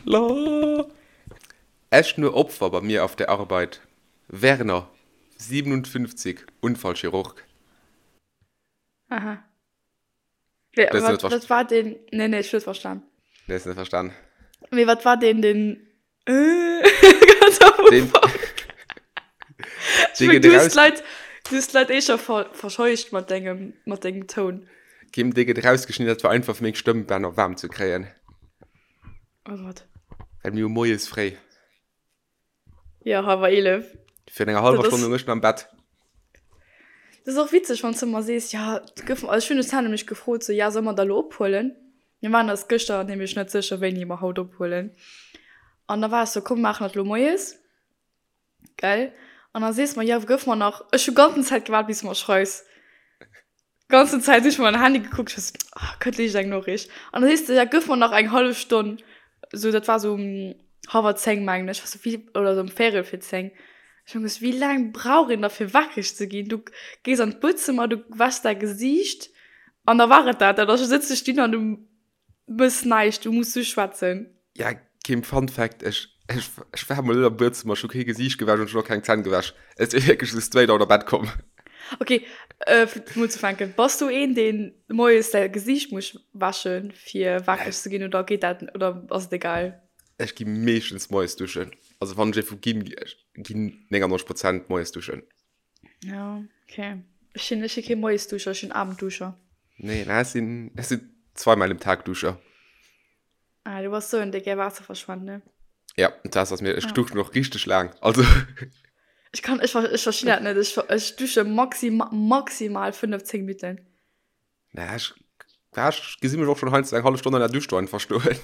La. Echt nur Opfer bei mir auf der Arbeit. Werner, 57, Unfallchirurg. Aha. Wé, Das wat, net wat war den? Nee, nee, ech hu net verstan. Nee, hast net verstan. Mee wat war den, den äh, ganz am Den, Ufank? Ech dee meng, gëtt du hues eraus, d'Leit, du hues d'Leit eh scho ver, verscheucht mat dengem, mat dengem Toun. Kim, dee gëtt erausgeschnidden, dat war einfach fir meng Stëmmbänner waarm ze kréien. Oh Gott. Well mir hu moies fréi. Jo, hallwer 11. Virun enger hallwer Dat Stonn ass. lung ech nach am Bett. Dat ass och witzeg, wann s de ëmmer sees, jo, gëff, also ech hunn de Sam nämlech gefrot, sou, ja, solle mer da lo ophuelen? Mir waren eis gëschter nämlech net sécher, wéini mer haut ophuelen. An da war ech sou, komm, mir maachen dat lo moies, gell? An da sees mer, jo, gëff mer nach, ech hu ganzen Zäit gewaart, bis de mer schreifs. Ganzen Zäit hu ech mei Handy gekuckt, ech war sou, ah, kënnt liicht eng Noriicht. An da sees de, ja, gëff mer nach eng hallef Stonn. Sou, dat war sou um hallwer 10, mengen ech. Ech war sou, wéi, oder sou um véierel fir 10. Ech hu gesot, wéi laang brauch een da fir wakereg ze ginn? Du gees an d'Buedzëmmer, du wäschs däi Gesiicht an da war et dat. Da sëtz ech dunn an du Mëss näischt, du muss just schwätzen. Ja, Kim, Fun Fact, ech, ech, ech war mol net am Buedzëmmer, ech hu kee Gesiicht gewäsch an ech hunn och keng Zänn gewäsch. Ech sinn wierklech esou straight out of bed komm. Ok, äh, fir mol ze fänken, bass du een, deen moies säi Gesiicht muss wäschen, fir wakereg ze ginn, oder geet dat, oder ass et egal? Ech gi meeschtens moies duschen. Also wann ech ee vu ginn, ech ginn 99 Prozent moies duschen. Ja, okay. Ech sinn, ech si kee Moiesduscher, ech sinn Abendduscher. Nee, na, ech sinn, ech sinn zweimal im Tag Duscher. Ah, du bass sou en, dee gär Waasser verschwent, ne? Ja, dat ass mir, ech Ja. duschen och richteg laang. Also, Ech kann, ech, ech verstinn dat net. Ech, ech dusche maxima, maximal 5, 10 Minutten. Na, ech, ja, ech gesi mech och schon heiansdo eng hallef Stonn an der Dusch do einfach stoen.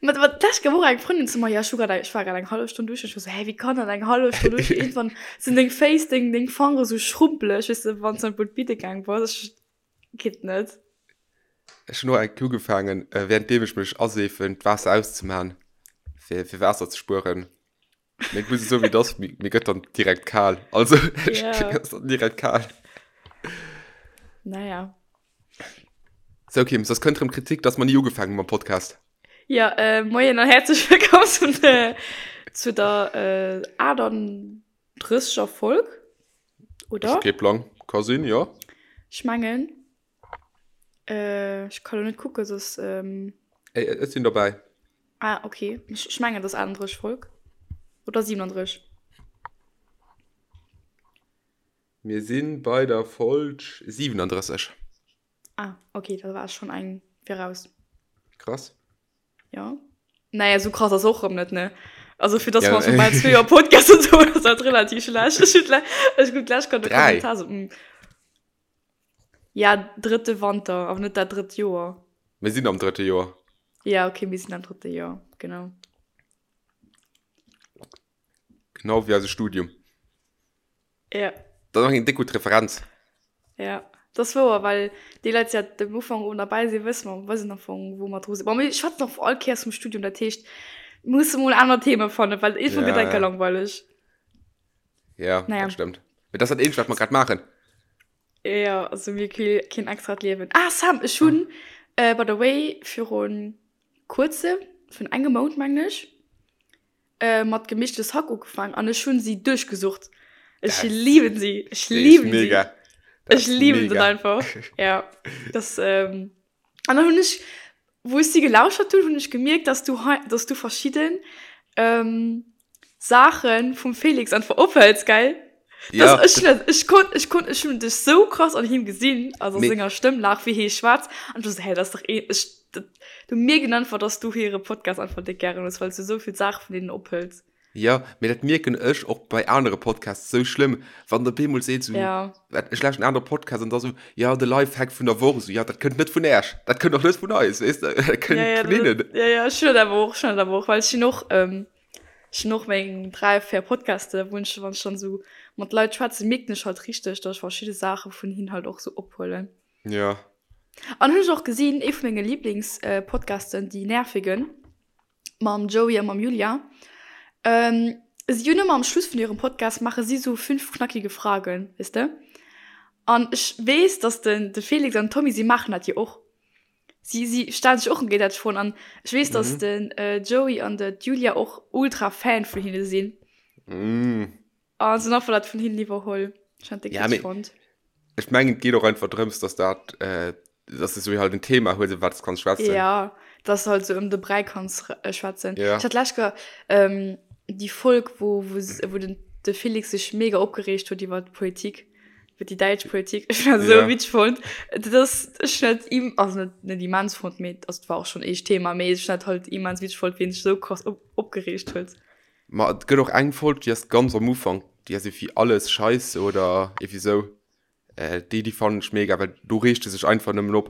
Ma ma d'lescht gouf och eng Frëndin zu mer, ja, ech hu grad eng, ech war grad eng hallef Stonn duschen. Ech war sou, hä, wéi kann dat eng hallef Stonn duschen? Iergendwann sinn deng Féiss, deng, deng Fangere sou schrumpeleg, weess de, wann s de an d'Bidde gaang bass. Ech, geet net. Ech hunn och eng Kéier ugefaangen, währenddeem ech mech aseefen, d'Waasser auszemaen, fir, fir Waasser ze spueren. Mee ech muss esou wéi et ass, mir, mir gëtt dann direkt kal. Also, ech Ja. mir ass dann direkt kal. Naja. Sou Kim, soss kënnt rëm Kritik, dass mer ni ugefaangen hu mam Podcast. Ja, äh, moien an häerzlech wëllkomm zum, äh, zu der äh, 38er Folg, oder? Ech hu kee Plang. Ka sinn, jo. Ech mengen. Äh, ech kann lo net kucken, soss. Ähm Ey, ech sinn dobäi. Ah, okay. Ech, ech mengen, et ass 38 Folg. Oder 37. Mir si bei der Folg 37. Ah, okay, da war ech schonn eng viraus. Krass. Ja. Naja, sou krass ass och rëm net, ne? Also fir dass Ja, mer schon bal zwee Joer Podcast und so, ass dat relativ schlecht. Ech hunn ech hunn d'lescht grad e Dräi. Kommentar so, mm. Ja, drëtte Wanter, awer net dat drëtt Joer. Mir sinn am drëtte Joer. Ja, okay, mir sinn am drëtte Joer, genau. Genau wéi eise Studium. Ja. Dat ass och eng déck gutt Referenz. Ja, dat ass wouer, well déi Leit, déi seit dem Ufank un derbäi sinn, wësse mer, wëssen am Fong, wou mer dru sinn. Bon, mir schwätzen och all Kéiers vum Studium, dat heescht, mir musse mol aner Theme fannen, well iergendwann gëtt Ja, enker ja. langweileg. Ja, Naja. dat stëmmt. Mee dat ass dat eenzegt, wat mer grad maachen. Ja, also mir kee keen extrat Liewen. Ah, Sam, ech hunn, äh, by the way, virun kuerzem, vun engem Mount mengen ech, äh, mat Gemischtes Hack ugefaangen an ech hunn si duerchgesucht. Ech Das- lieben si, ech Déi ist lieben si. mega. Das Ech ist lieben se mega. einfach. Ja, das, ähm, an dann hunn ech, wou ech si gelauschert hunn, hunn ech gemierkt, dass du hei, dass du verschidden, ähm, Saachen vum Felix einfach ophëls, gell? Ja, Das, ech, hun dat, ech konnt, ech konnt, ech hunn dech sou krass an him gesinn, also Mee- senger Stëmm lag, wéi hie schwätzt, an ech war sou, hä, dat ass dach ee, ech, dat, du mierken einfach, dass du hire Podcast einfach déck gären hues, well s du sou vill Saache vun deenen ophëls. Ja, mee dat mierken ech och bei anere Podcasts sou schlëmm, wann der bemol seet sou, Ja. wat, ech lauschten en anere Podcast an da sou, ja, de Lifehack vun der Woch, sou, ja, dat kënnt net vun Äech, dat kënnt och net vun eis, weess de, dat kënnt Ja, ja, vun hinnen. dat, ja, ja, ech hunn dat awer och, ech hunn dat awer och, well ech hunn och, ähm, ech hunn och meng 3, 4 Podcaste, wou ech, wann ech dann sou mat Leit schwätzen, mierken ech halt richteg, dass ech verschidde Saache vun hinnen halt och sou ophuelen. Ja. An hunn ech och gesinn, ee vu menge Lieblingspodcasten, déi Nervigen, mam Joey a mam Julia. Ähm, si hunn ëmmer am Schluss vun hirem Podcast maache si sou 5 knackige Fragen, weess de? An ech weess, dass den de Felix an den Tommy, si maachen dat jo och. Si, si stellen sech och géigesäiteg Froen an ech weess, dass mhm. den äh, Joey an de Julia och ultra Fan vun hinne sinn. Mm. An sinn einfach dat vun hinnen iwwerholl. Ech han déi ja, fonnt. Ech mengen, et geet och einfach drëms, dass dat, äh, dass du so halt en Thema hues, iwwer wat du kanns schwätzen. Ja, dass du halt so ëm de Bräi kanns äh, schwätzen. Ja. Ech hat lech ähm, déi Folg, wou, wou, wou den, de Felix sech mega opgereegt huet iwwer d'Politik. Iwwer déi däitsch Politik. Ech hun dat esou Ja. witzeg fonnt. Dat ass, ech hun dat im, also net, net immens fonnt, mee also et war och schonn eescht Thema, mee ech hun dat halt immens witzeg fonnt, wéi en sech esou krass op, opgereegt huet. Ma et gëtt och eng Folg, déi ass ganz am Ufank, déi ass iergendwéi Alles Scheisse oder iergendwéi esou. Déi, déi fannen ech mega, well do reegt e sech einfach nëmmen op.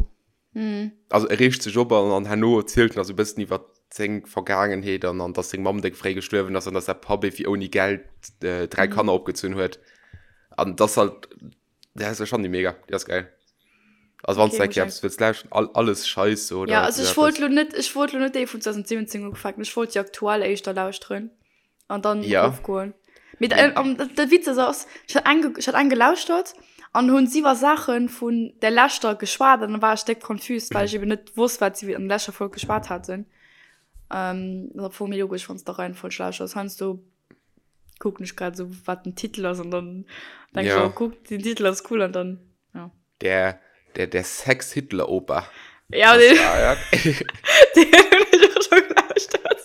Also e reegt sech op an, an herno erzielt en da sou e bëssen iwwer seng Vergaangenheet an, an dass seng Mamm déck fréi gestuerwen ass an dass säi Papp iergendwéi ouni Geld 3 Kanner opgezunn huet. An dass halt, ja, ech fannen déi mega, déi ass geil. Also wann s Okay, du eng muss Kéier ech eppes wëlls lauschteren, all, Alles Scheisse oder Ja, also esou ech wollt eppes. lo net, ech wollt lo net déi vun 2017 ufänken, ech wollt déi aktuell éischter lauschteren. An dann Ja. erofgoen. Mee da, ähm, de Witz ass, ass, ech hat eng, ech hat eng gelauschtert an hunn si iwwer Saache vun der leschter geschwat an dann war ech déck confused, well ech eben net wosst, wat si an der leschter Folg geschwat haten. Ähm, dat ass am Fong méi logesch, wann s de Reihenfolg lauschterst. Heiansdo kucken ech grad esou, wat den Titel ass an dann denk ech, Ja. oh kuck, den Titel ass cool an dann, ja. Der, der, der Sex-Hitler-Opa. Ja, Das den, war, ja. den hunn ech och scho gelauschtert.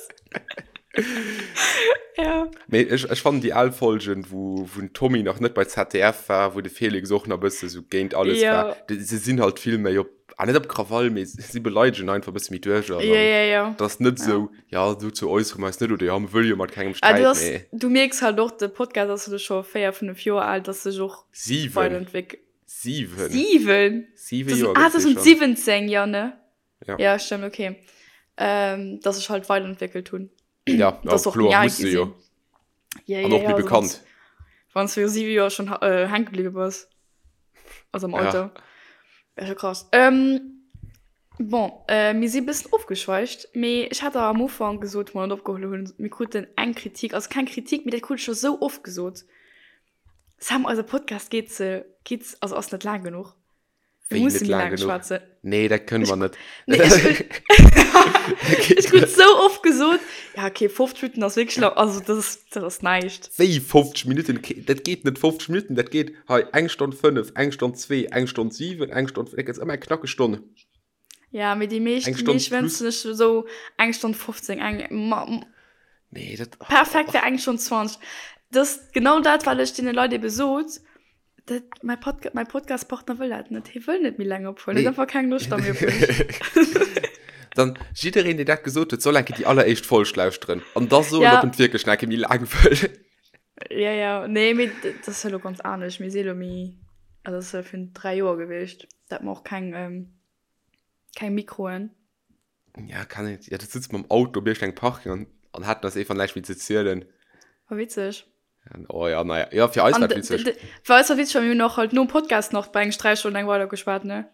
Ja. Mee ech, ech fannen déi al Folgen, wou, wou den Tommy nach net bei ZDF war, wou de Felix och nach e bësse sou géint alles Ja. war, déi, se sinn halt vill méi op, ah net op Krawall, mee si beleidegen einfach e bësse méi duerch an Ja, dann, ja, ja. dat ass net Ja. sou, ja, dozou äussere mer eis net oder ja, mir wëlle jo mat kengem Ah, du sträiten, ass, mee. du mierks halt och, de Podcast ass elo scho 4, 5 Joer al, dass sech och 7. weiterentwéck. 7. 7? 7 Joer Ah, gëtt dee schonn. 2017, ja, ne? Ja. Ja, stimmt, okay. Ähm, dass sech halt weiterentwéckelt hunn. Ja, ja Dass och kloer, méi al muss gi se jo. sinn. Ja, An ja, och ja, méi also bekannt. Wann s du 7 Joer schonn äh, hänke bliwwe bass. Also am Ja. Alter. Wär scho krass. Ähm, bon, äh, mir si bëssen ofgeschweift, mee ech hat der am Ufank gesot, wou mer dat opgeholl hunn, mir kruten eng Kritik, also keng Kritik, mee dat krut ech scho sou oft gesot, Sam, eise Podcast geet ze, geet, also ass net laang genuch. Wéi Mir musse net méi laang laang genuch? schwätzen. Nee, dat kënne mer net. Nee, ech, ech krut sou oft gesot, ja okay, 50 Minutten ass wierklech lang, also dat ass, dat ass näischt. Wéi 50 Minutten? Dat geet net 50 Minutten, dat geet hei eng Stonn 5, eng Stonn 2, eng Stonn 7, eng Stonn, dat gëtt ëmmer eng knackeg Stonn. Ja, mee déi meescht, Eng déi Stonn meescht plus. wënschen ech esou eng Stonn 15, eng, ma, Nee, dat, perfekt wär eng Stonn 20. Dat ass genau dat, wat ech deene Leit ebe sot, Dat, mäi Podca mäi Podcastpartner wëll dat net. Hie wëll net méi laang ophuelen. Nee. Huet einfach keng Loscht da méi op mech. Dann jiddereen, deen dat gesot huet, soll eng Kéier déi alleréischt Folg lauschteren an da soen, Ja. ob en et wierklech nach eng Kéier méi laang wëll. Ja, ja. Nee, mee dat ass jo elo ganz anescht. Mir si elo méi, also dat ass jo virun 3 Joer gewiescht. Da hat mer och keng, keng Mikroen. Ja, kann net. Ja, du sitzt mam Auto op iergendengem Parking an, an haten eis einfach näischt méi ze zielen. War witzeg. Oh ja, naja. Ja, fir eis An war de- et witzeg. de- Fir eis war witzeg, well mir hunn och halt nom Podcast nach bei engem Sträichstonn eng weider geschwat, ne?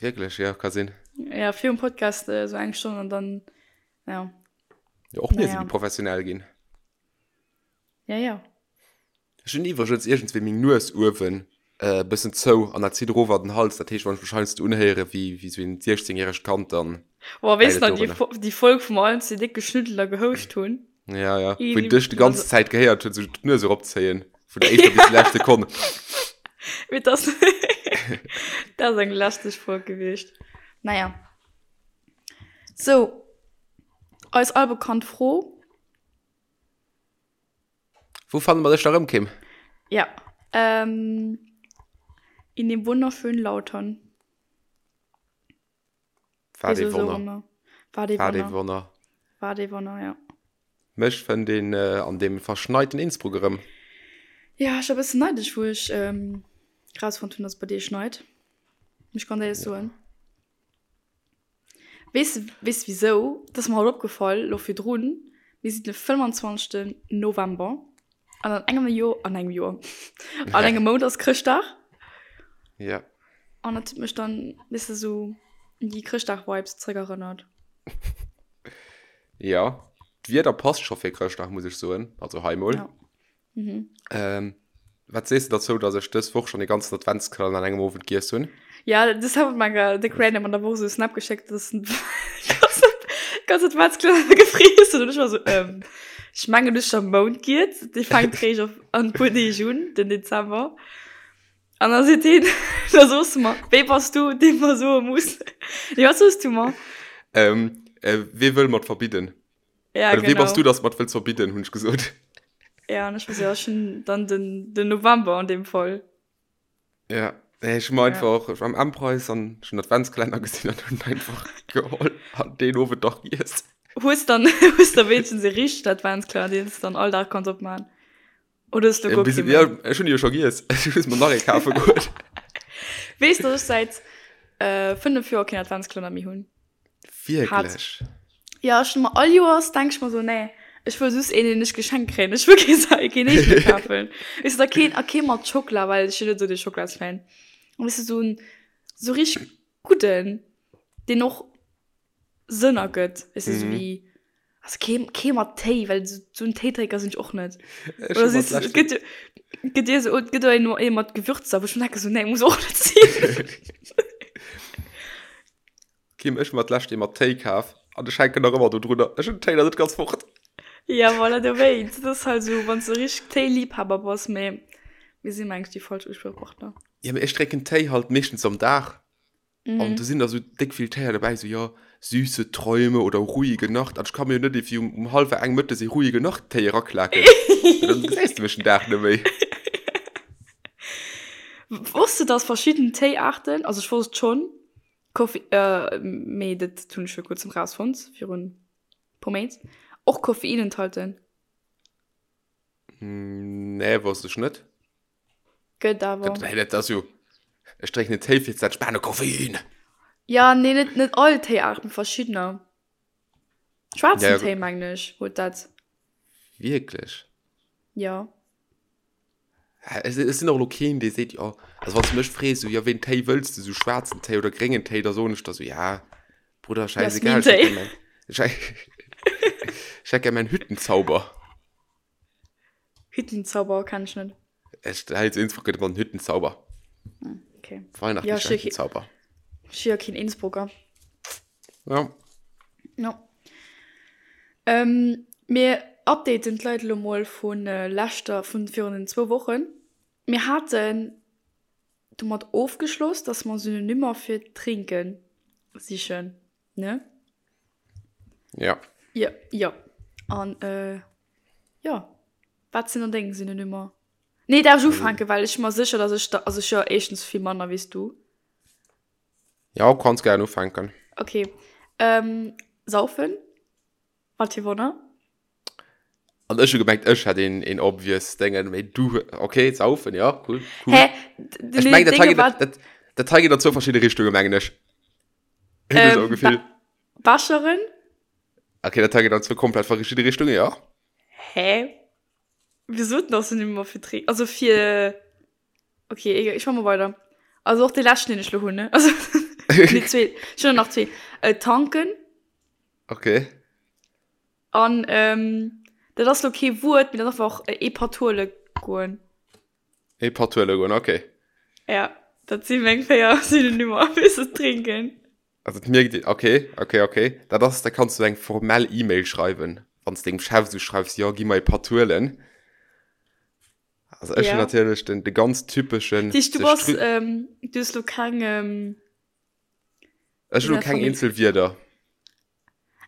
Wierklech, ja, ka sinn. Ja, virum Podcast äh, so eng Stonn an dann, ja. Ja, och mir si Naja. méi professionell ginn. Ja, ja. Ech hunn iwwregens iergendswéi meng Nues uewen e bëssen zou an dat zitt erof an den Hals. Dat heescht, wann ech mech heiansdo unhéiere wéi wéi sou een 16 järegt Kand, dann Boah, weess läit et nach déi, dorunner. déi Folg, wou mer allen zwee déck geschnüddelt a gehouscht hunn? Ja, ja. Wou Easy. een dech déi ganz Zäit gehéiert huet, sou d'Nues eropzéien, vun der éischter bis déi lescht Sekonn. Mee dat ass, dat ass eng lästeg Folg gewiescht. Naja. Sou, eis albekannt Fro. Wou fanne mer dech da rëm, Kim? Ja, ähm, in dem wunderschönen Lautern. War Wieso dee so Wonner. ëmmer? War dee War dee Wonner. Wonner. War dee Wonner, ja. Mech fënnt een äh, an deem verschneiten Innsbruck erëm. Ja, ech war e bëssen neidesch, wou ech ähm, rausfonnt hunn, dass et bei dir schneit. Muss ech ganz éierlech soen. Weess de, weess de wisou? Dat ass mer haut opgefall, lo virdrun. Mir sinn de 25. November an an engem Joer, an engem Joer, an engem Mount ass Chrëschtdag. Ja. An dat huet mech dann, weess de, sou un déi Chrëschtdag-Vibes zréckerënnert. Ja, d'Wieder passt scho fir Chrëschtdag, muss ech soen. Also hei mol. Ja. Mhm. Ähm, wat sees de derzou, dass ech dës Woch schonn e ganzen Adventskalenner an engem Owend giess hunn? Ja, das hat mir mal Dick Random an der Woche so einen Snap geschickt, dass ein ganze Adventskalenner gefriess huet. Und ich war so, ähm, ich mengen, du schon Mount giet. Die fängt réischt auf an puer Deeg un, den Dezember. An da seet hien, da soos du mer, wee bass du, dee mer soe muss. Nee, wat soos du mer? Ähm, äh, wee wëll mer verbidden? Ja, Oder wee genau. bass du, dass mer wëlls verbidden, hunn ech gesot. Ja, an ech war so, ja, ech hunn dann den, den November an deem Fall. Ja, nee, ech hunn mer einfach, ech war am M-Preis an ech hunn Adventskalenner gesinn an hunn einfach geholl an deen Owend dach giess. Hues dann, hues da wéinstens e richtegen Adventskalenner, deen s de dann all Dag kanns opmaachen? Oder hues du guer kee méi? Ja, ech hunn jo scho giess. Ech muss mer nach ee kafe goen. Weess, dass ech säit 5 Joer keen Adventskalenner méi hunn? Wierklech? Ja, ech hunn mer all Joers, denk ech mer sou, nee, ech wëll just een, deen ech geschenkt kréien. Ech wëll kee sa keen eegene kafen. Weess du, da keen, a kee mat Schockela, well ech sinn net sou de Schocklasfan. An weess du, sou en, sou richteg gudden, deen och Sënn ergëtt, weess du, sou wéi, also kee, kee mat Téi, well sou, sou en Téidrénker sinn ech och net. Ech Oder hunn mer siehst du, d'lescht et gëtt jo, gëtt dir sou, et gëtt och een, ee mat Gewürzer, wou ech mir denke sou, nee, muss och net sinn. Kim, ech hu mer d'lescht ee mat Téi kaf an ech hänken nach ëmmer do drunner. Ech hunn den Téi nach net ganz fort. Ja, voilà, dowéinst. Dat ass halt esou, wann s de richteg Téiliebhaber bass, mee mir si mengen ech déi falsch Uspriechpartner. Ja, mee ech drénken Téi halt meeschtens am Dag an do sinn da sou déck vill Téier dobäi, sou jo, süße Träume oder ruhige Nacht an ech ka mir jo net iergendwéi um um hallwer eng mëttes ee ruhige Nacht Téi eraklaken, well dann gesäis de mech den Dag net méi. Wosst de, dass verschidden Téiaarten, also ech wosst et schonn, Koffi, mee dat hunn ech vir kuerzem rausfonnt, virun puer Méint, och Koffein enthalten. Nee, wosst ech net. Gëtt awer. Dat, dat ass jo, ech drénken en Téi fir ze entspanen, Koffein! Ja, nee, net, net all Téiaarten, verschiddener. Schwaarzen Ja, Téi, mengen ech, huet dat. Wierklech? Jo. Ech sinn och elo keen, dee seet, jo, also wann s du mech frees, sou, jo, wéi en Téi wëlls de, sou schwaarzen Téi oder gréngen Téi, da soen ech der sou, ja, Brudder, schäisegal, ech hätt gär mäin, ech hätt gär mäin Hüttenzauber. Hüttenzauber kenn ech net. Ech, hei zu Innsbruck gëtt ëmmer den Hüttenzauber. Okay. Weihnachtlicher Hüttenzauber. Ech si jo keen Innsbrucker. Ja. Ja. Ähm, mir updaten d'Leit elo mol vun leschter, vun virun den zwou Wochen. Mir haten domat ofgeschloss, dass mer Synonymer fir trinken sichen, ne? Ja. Ja, ja. An, äh, ja. Wat sinn dann deng Synonymer? Nee, darf ech ufänken, well ech si mer sécher, dass ech der, also ech hu jo éischtens vill manner wéi s du. Ja, kanns gären ufänken. Okay. Ähm, saufen. Wat fir Wonner. An ech hu gemengt, ech hätt een, een obvious Déngen, mee du, okay, saufen, ja, cool, cool. Hä? Ech mengen, dat hei geet, dat, dat hei geet an zwou verschidde Richtunge, mengen ech. Hunn ech esou e Gefill. Becheren. Okay, dat hei geet an zwou komplett verschidde Richtunge, ja. Hä? Wieso denn ass Synonymer fir trinken? Also fir. Okay, egal, ich mach mal weiter. Also och de leschten, den ech lo hunn, ne? Also, nee, zwee. Ech hunn nach zwee. Äh, tanken. Okay. An, ähm, dat ass lo kee Wuert, mee dat ass einfach ee Patuole goen. Ee Patuole goen, okay. Ja, dat si meng 4 Synonymer fir ze trinken. Also et mierkt een, okay, okay, okay. Dat ass, da kanns du eng formell E-Mail schreiwen, wann s dengem Chef esou schreifs, jo, gi mer ee Patuelen. Also ech hunn natierlech den, de ganz typeschen. Dich, du bass, ähm, du hues lo keng, ähm, Ech hunn lo keng eenzel Wierder.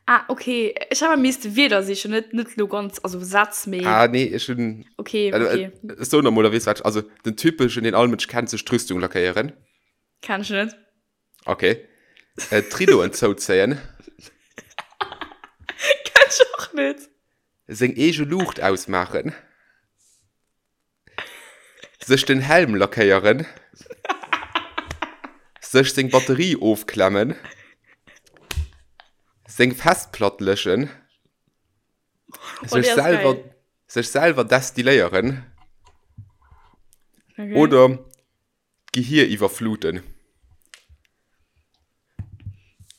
Ah, okay. Ech hat misste Wierder sichen, net, net lo ganz, also Sätz, mee. Ah, nee, ech hunn. Okay, okay. Ech soen der mol, da weess wat ech, also den typeschen, deen all Mënsch kennt, sech d'Rüstung lackéieren. Kenn ech net. Okay. Äh, d'Ridoen zouzéien. Kenn ech och net. Seng eege Luucht ausmaachen. Sech den Helm lackéieren. Sech seng Batterie ofklemmen. Seng Festplatt löschen. Oh, Sech déi ass selwer, geil. sech selwer destilléieren. Okay. Oder D'Gehir iwwerfluten.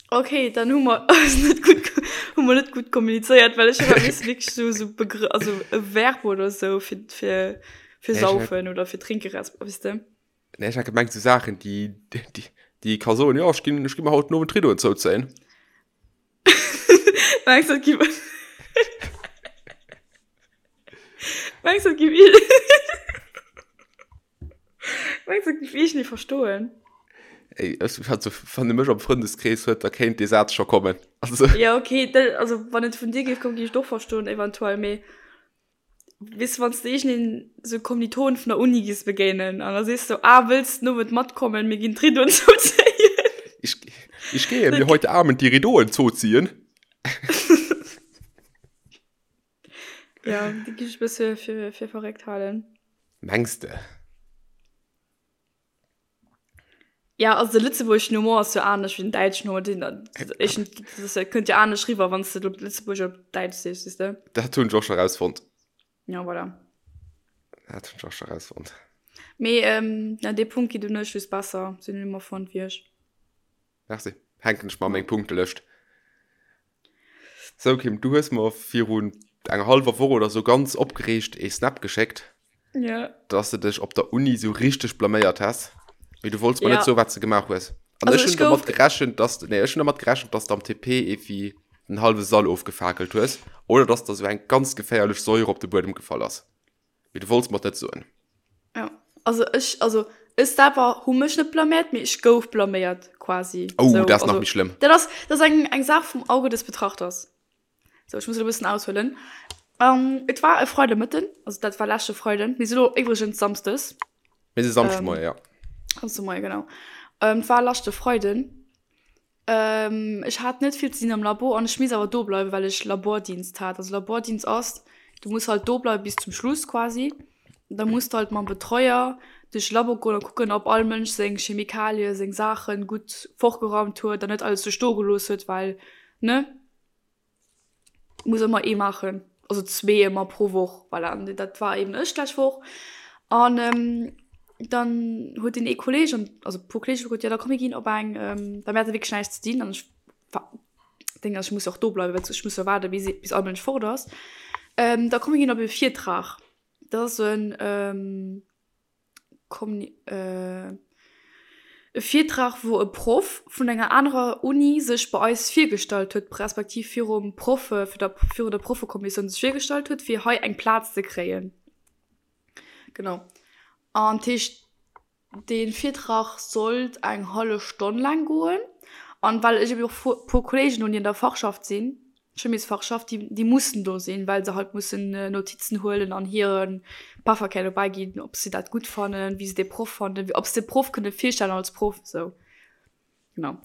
Okay, dann hu mer eis net gutt, hu mer net gutt kommunizéiert, well ech hu wierklech sou sou Begrë-, also e Verb oder sou fir, fir, fir Nee, ech hat- saufen oder fir trinke resp. Weess de? Nee, ech hat gemengt, sou Saachen, déi, déi. Déi ka soen, jo, ech ginn, ech gi mer haut den Owend d'Ridoen zouzéien. Mengs du, et gi. Mengs du, et gi. Mengs du, et géif iergendee verstoen? Ey, ech, also, wann e mech am Frëndeskrees huet, da kéint dee Saz scho kommen. Also. Ja, okay, dat, also, wann et vun dir géif kommen, géif ech et och verstoen, eventuell, mee weess du, wann s de iergendeen sou Kommilitonen vun der Uni giss begéinen an da sees du, ah, wëlls den Owend matkommen, mir ginn d'Ridoen zouzéien? Ich, ich gehe mir heute Abend die Ridoen zoziehen. Ja, déi géif ech e bësse fir, fir verréckt halen. Mengs de? Ja, also de lëtzebuergeschen Humor ass jo anescht wéi den däitschen Humor. Den, ech, das kënnt jo anescht riwwer, wann s de op Lëtzebuergesch oder op Däitsch sees, weess de? Dat hunn ech och scho rausfonnt. Ja, voilà. Dat hunn ech och scho rausfonnt. Mee, ähm, ja, dee Punkt geet un ech just besser, sinn ëmmer fonnt wéi ech. Merci. Hänken ech mer an meng Punktelëscht. Sou Kim, du hues mer virun enger hallwer Woch oder sou ganz opgereegt ee Snap geschéckt, Ja. dass de dech op der Uni sou richteg blaméiert häss, mee du wollts mer Ja. net soen, wat s de gemaach hues. An Also ech ech hunn domat gouf. gerechent, dass de, nee, ech hunn domat gerechent, dass de am TP ewéi den hallwe Sall ofgefakelt hues oder dass der sou eng ganz geféierlech Säure op de Buedem gefall ass. Mee du wollts mer et net soen. Ja, also ech, also ech selwer hu mech net blaméiert, mee ech gouf blaméiert quasi. Oh, So, dat ass nach also méi schlëmm. dat ass, dat ass eng, eng Saach vum Auge des Betrachters. So, ech muss elo e bëssen aushuelen. Ähm, et war e Freidemëtten, also dat war leschte Freiden, mir si lo iwwregens Samsdes. Mir si Samschdemoie, ja. Samschdemoie, genau. Ähm, et war leschte Freiden. Ech hat net vill ze dinn am Labo an ech misst awer do bleiwen, well ech Labordienst hat. Also Labordienst ass, du muss halt do bleiwen bis zum Schluss quasi. Da muss du halt mam Betreuer duerch de Labo goen a kucken, ob all Mënsch seng Chemikalie, seng Saachen gutt fortgeraumt huet an net alles sou stoe gelooss huet, well ne? Muss ëmmer ee maachen, also zwee ëmmer pro Woch, voilà. An dat war eben ech d'lescht Woch. An dann huet deen ee Kolleeg an also e puer Kolleege gesot, jo da komm mir ginn op eng, well mir hate wierklech näischt ze dinn an ech war Ding ass, ech muss jo och do bleiwen, well ech muss jo waarde bis bis all Mënsch fort ass. Da komm mir ginn op e Virtrag. Dat ass esou en E Virtrag, wou e Proff vun enger anerer Uni sech bei eis virgestallt huet, respektiv virum Proffe, virun der Proffekommissioun sech virgestallt huet, fir hei eng Plaz ze kréien. Genau. An dat heescht, dee Virtrag sollt eng hallef Stonn laang goen. An well ech ebe och e puer Kolleegen hunn, déi an der Fachschaft sinn, Chimiesfachschaft, déi, déi mussen do sinn, well se halt mussen Notizen huelen an hire Pefferkär dobäi ginn, ob se dat gutt fannen, wéi se dee Proff fannen, ob se de Proff kënne virstellen als Proff, esou. Genau.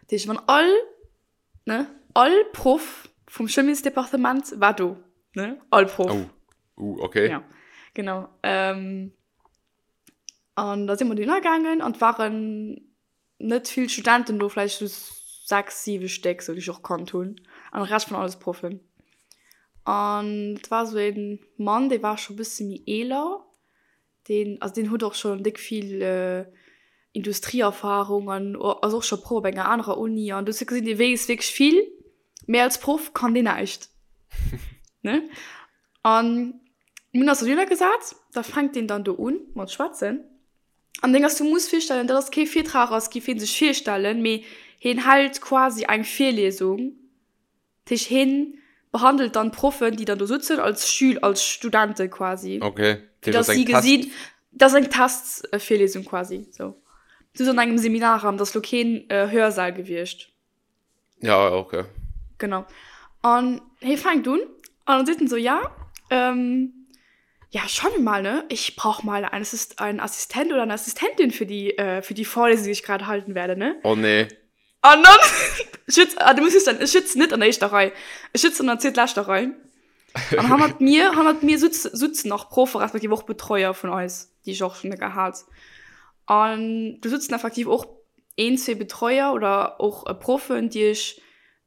Dat heescht, wann all, ne, all Proff vum Chimiesdepartement war do, ne, all Proff. Oh, uh, okay. Ja, genau. Ähm, an da si mer dohinner gaangen an et waren net vill Studenten do, vläicht sou 6, 7 Stéck, sou déi ech och kannt hunn, an de Rescht waren alles Proffen. An et war sou ee Mann, dee war scho bësse méi eeler, deen, also deen huet och schonn déck vill Industrieerfarung an ass och scho Proff op enger anerer Uni an du hues gesinn, dee weess wierklech vill, mee als Proff kann deen näischt, ne? An mir hunn eis dohinner gesat, da fänkt deen dann do un mat schwätzen. An Deng ass, du muss virstellen, dat ass kee Virtrag ass, giff hien sech virstellen, mee hien hält quasi eng Virliesung. Dat heescht, hien behandelt dann d'Proffen, déi dann do sutzen, als Schül-, als Studente quasi. Okay, dat heescht, dat ass eng Test. Dat ass eng Testvirliesung quasi, sou. Du an engem Seminarraum, dat ass lo keen Hörsaal gewiescht. Ja, okay. Genau. An hie fänkt un an dann seet en sou, ja, ähm, ja, schauen wir mal, ne? Ich brauch mal einen Assist einen Assistent oder eine Assistentin für die, äh, für die Vorlesung, die ich gerade halten werde, ne? Oh nee. An dann, ech sitz, ah, du muss wëssen, ech sëtzen net an der éischter Rei. Ech sëtzen an der zweetleschter Rei. An hannert mir, hannert mir sutz, sutzen nach Proffe respektiv och Betreuer vun eis, déi ech och schonn gehat. An do sutzen effektiv och een, zwee Betreuer oder och Proffen, déi ech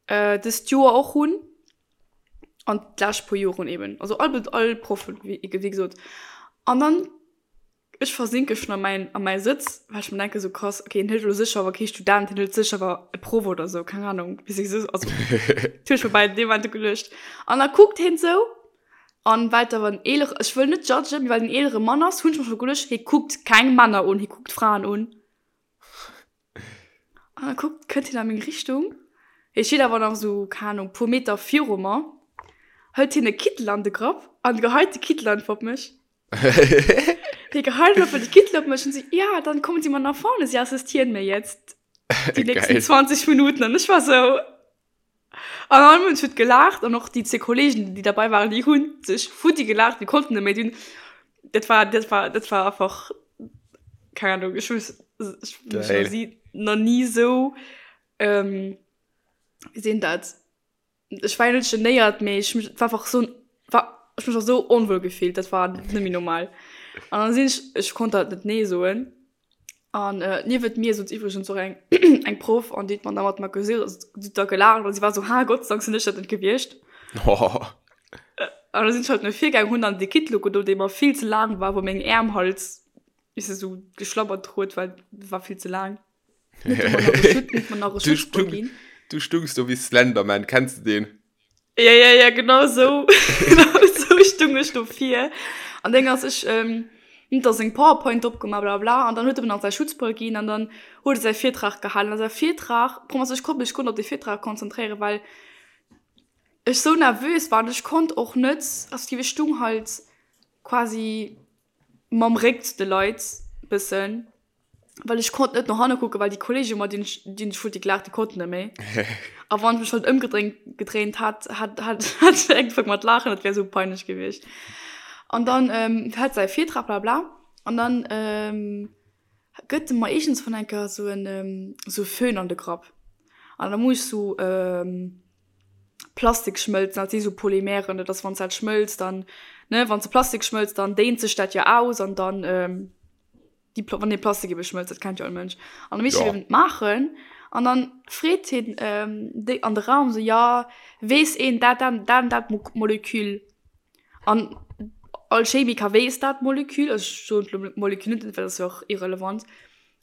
dëst Joer och hunn an d'lescht puer Joren eben. Also all, all Proffen, wéi gesot. An dann, ech versinke schonn a mäin, a mäi Sëtz, well ech mer denken, sou krass, okay, hien hëlt elo sécher awer kee Student, hien hëlt sécher awer e Proff oder sou, keng Ahnung, wéi se sou, also dat hunn ech mer bei deem Moment geduecht. An da kuckt hien sou an well et awer en eelere, ech wëll net judgen, mee well et en eelere Mann ass, hunn ech mer scho geduecht, hie kuckt keng Männer un, hie kuckt Fraen un. An da kuckt, kënnt hien a meng Richtung. Hie steet awer nach esou, keng Ahnung, puer Meter viru mer. Hëlt hien e Kittel an de Grapp an geheit de Kittel einfach op mech. Hie geheit einfach de Kittel op mech an seet, Ja, dann kommen Sie mal nach vorne, Sie assistieren mir jetzt die nächsten 20 Minuten. An ech war sou. An all Mënsch huet gelaacht an och déi zwee Kollegen, déi derbei waren, déi hunn sech futti gelaacht, déi konnten net méi. Déi hunn, dat war, dat war, dat war einfach, keng Ahnung, ech hu ech hu mech nach ni, nach ni esou, wéi seet een dat, ech war jo net genéiert, mee ech hu mech, et war einfach esou, war, ech hu mech einfach esou onwuel gefillt, dat war net méi normal. An da sinn ech, ech konnt halt net nee soen. An äh, niewent mir sot iwwregens och eng eng Proff an déi huet mer da mat mer gesot, also si huet da gelaacht an si war sou, ha Gott sei Dank sinn ech dat net gewiescht. Oh. An da sinn ech halt no vir gaang, hunn dann dee Kittel ugedo, dee mer vill ze laang war, wou meng Äerm halt, weess de, sou geschlabbert huet, well war vill ze laang. Huet e mer nach e Schutz, huet mer nach e Du Schutzbrëll stung, ginn. du stungs do wéi Slenderman, kenns de deen? Ja, ja, ja, genau so. Genau so stung ech do vir. An deng ass ech, ähm, huet da seng PowerPoint opgemaach, bla bla, an dann huet e mir nach säi Schutzbrëll ginn an dann huet e säi Virtrag gehalen. A säi Virtrag, Problem ass, ech konnt mech guer net op dee Virtrag konzentréieren, well ech sou nervös war an ech konnt och net, also ech stung halt quasi mam Réck zu de Leit bëssen. Well ech konnt net no hanne kucken, well déi Kollegen, mat deenen ech, deenen ech futti gelaacht, déi konnten net méi. A wann ech mech halt ëmgedréint, gedréint hat, hat, hat, hat ech ugefaangen mat laachen, dat wär esou peinlech gewiescht. An dann ähm, hat säi Virtrag, bla bla. An dann ähm, gëtt e mer iergendswann eng Kéier esou en, esou e Föhn an de Grapp. An da muss ech esou ähm, Plastik schmëlzen, dat si sou Polymeren, dat ass wann s dat schmëlzt, dann, ne, wann s de Plastik schmëlzt, dann déint sech dat jo aus an dann ähm, déi wann dee Plastik ebe schmëlzt, dat kennt jo all Mënsch. An da misst ja. eben maachen. An dann freet hien ähm, déi an de Raum so ja, weess een dat dat dat dat Molekül. An all Chemiker weess dat Molekül, also ech soen d'Molekül net, well dat ass jo och irrelevant.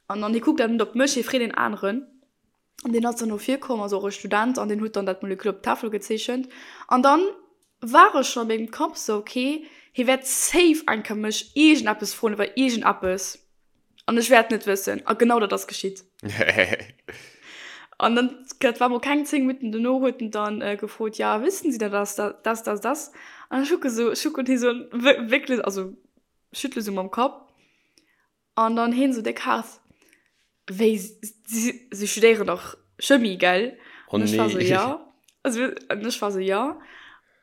An dann hie kuckt awer net op mech, hie freet een aneren. An deen ass dann no vir komm, also och e Student, an deen huet dann dat Molekül op d'Tafel gezeechent. An dann war ech schon a mengem Kapp sou, okay, hie wäert safe eng Kéier mech iergendeppes froen iwwer iergendeppes an ech wäert net wëssen. A genau dat ass geschitt. An dann, dat war mol keng 10 Minutten dono, huet en dann gefrot, ja, wissen Sie denn das, das, das, das? An ech kucke sou, ech kucken hie sou an, wierklech, also schüttle sou mam Kapp. An dann heen sou déck haart, wéi, si, si studéieren dach Chemie, gell? Oh An ech war sou, nee. ja. Also, an ech war sou, ja.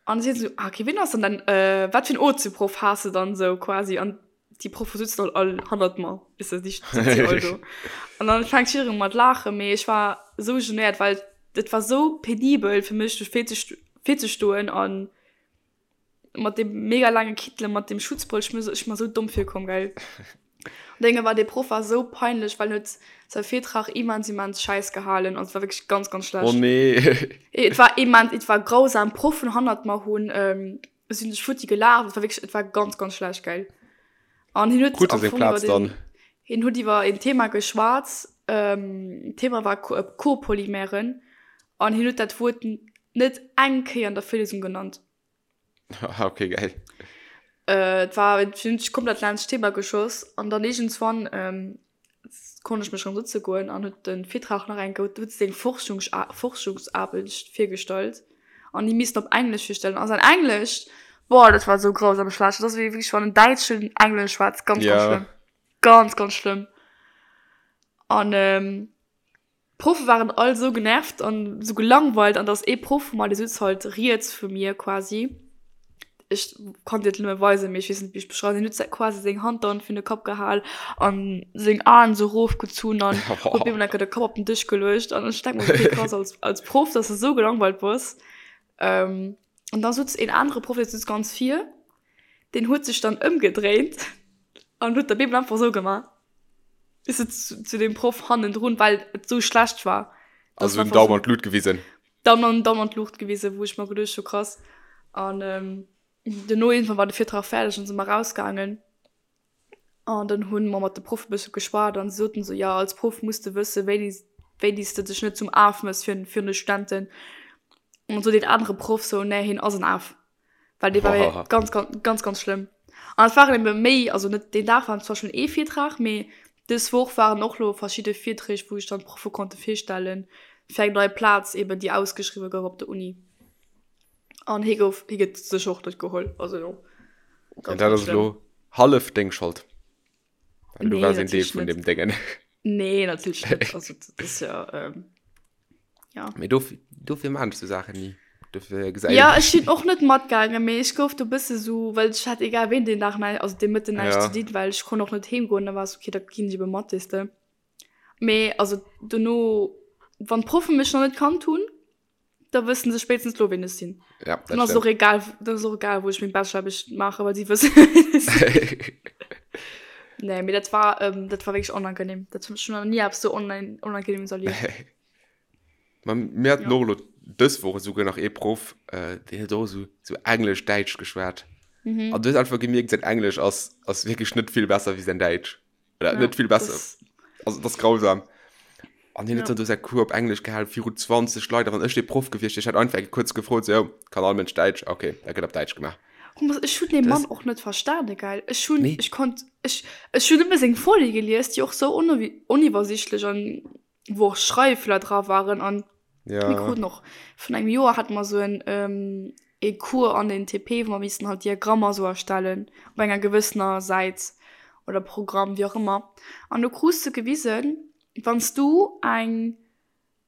An si sou, ah, okay, wien ass dann dein, äh, wat fir en Ozeproff has de dann sou quasi? An déi Proffe sutzen halt all hannert mer, weess de, déi sëtzen all do. An dann fänkt jiddereen u mat laachen, mee ech war sou genéiert, well et war sou penibel fir mech do virzestoen an Mat dem mega laange Kittel, mat dem Schutzbrëll, ech mir ech mir sou domm virkomm, gell. An Dénge war dee Proff war sou peinlech, well en huet säi Virtrag immens immens schäiss gehalen, also et war wierklech ganz ganz Oh schlecht. nee. Et war immens, et war grausam, Proffen hannert mer hunn sinn sech futti gelaacht, et war wierklech, et war ganz ganz schlecht, gell. An hien huet Krut e am seng Fong iwwer Plaz den, dann? hien huet iwwer een Thema geschwat, d'Thema war Copolymeren an hien huet dat Wuert net eng Kéier an der Virlesung genannt. Ah, okay, geil. Äh, et war et hunn sech komplett laanscht d'Thema geschoss an dann iergendswann ähm, konnt ech mech rëm sëtze goen an huet de Virtrag nach eng Kéier, huet seng Forschungs Forschungsaarbecht virgestallt an déi missten op Englesch virstellen a säin Englesch, boah, dat war esou grausam schlecht. Dat ass wéi wierklech wann en Däitschen Englesch schwätzt, ganz, ganz Ja. schlëmm. Ganz, ganz schlëmm. An ähm, D'Proffe waren all sou genervt an sou gelangweilt an dass ee Proff vu mer, dee sutz halt riets vu mir quasi, ech kann dir et nëmme weisen, mee ech weess net wéi ech beschreiwen, deen huet quasi seng Hand dann virun de Kapp gehal an seng Aen sou rofgezunn an huet op eemol enker de Kapp op den Dësch geluecht an ech denk mer okay krass als als Proff dass de sou gelangweilt bass. An da sutz een anere Proff, dee sutz ganz vir, deen huet sech dann ëmgedréint an huet op eemol einfach sou gemaach. Ist et zu, zu dem Proff hannendrun, well et sou schlecht war. Also den Daumen an d'Lut gewisen. Daumen an, Daumen an d'Luucht gewisen, wou ech mer geduecht hu krass. An ähm, duerno irgendwann war de Virtrag fäerdeg an si mer rausgaangen. An dann hunn mer mat de Proff e bësse geschwat an se soten sou, ja als Proff muss de wësse wéini wéini s de dech net zum Af mëss fir virun de Studenten. An sot deen anere Proff sou, nee hien ass en Af. Well dee war ganz, ganz, ganz, ganz schlëmm. An et waren ebe méi, also net deen Dag war zwar schonn ee Virtrag, mee. Dës Woch waren och lo verschidde Virträg, wou sech dann d'Proffe konnte virstellen, fir eng nei Plaz eben, déi ausgeschriwwe gouf op der Uni. An hie gouf, hie gëtt sécher och net geholl. Also jo, An ganz, dat ganz ass schlëmm. elo hallef deng Schold. Well du Nee, waars een Deel natierlech vun net. deem Déngen. Nee, natierlech net. Also dat ass jo, ähm, ja. Mee dofir, dofir maan ech sou Saachen ni. Dofir gesäit Ja, een ech sinn och net matgaangen, mee ech gouf do bësse sou, well ech hat egal ween deen Dag näi, also dee Mëtten näischt Ja. ze dinn, well ech konnt och net heem goen, da war es okay, da ginn ech ebe mat, weess de. Mee also dono, wann d'Proffe mech nach net kannt hunn, da wëssen se spéitstens lo ween ech sinn. Ja, dat Dann ass et och stimmt. egal, dann ass och egal wou ech meng Bachelor-Aarbecht maachen, well si wëssen ween ech sinn. Nee, mee dat war, ähm, dat war wierklech onangenehm. Dat hunn ech nach ni eppes sou onangenehmes erlieft. Ma mir haten Ja. och elo dës Woch esouguer nach ee Proff, äh, deen huet och esou, esou Englesch-Däitsch geschwat. Mhm. An du hues einfach gemierkt, säin Englesch ass, ass wierklech net vill besser wéi säin Däitsch. Oder Ja, net vill besser. das, Also, dat ass grausam. An hien huet ja. dann do säi Cours op Englesch gehalen viru 20 Leit. A wann ech dee Proff gewiescht wier, ech hätt einfach eng kuerz gefrot, sou, jo, kann all Mënsch Däitsch? Okay, da gëtt op Däitsch gemaach. Thomas, ech hunn dee Das, Mann och net verstane, gell? Ech hunn, nee. ech konnt, ech, ech hunn nëmme seng Folie gelies, déi och sou oniwwersichtlech an wou och Schreiffeeler dra waren an mir Ja. kruten och vun engem Joer hate mer sou en ähm, ee Cours an den TP, wou mer missten halt Diagrammer sou erstellen op enger gewëssener Säit oder Programm, wéi och ëmmer. An do krus de gewisen, wann s du eng,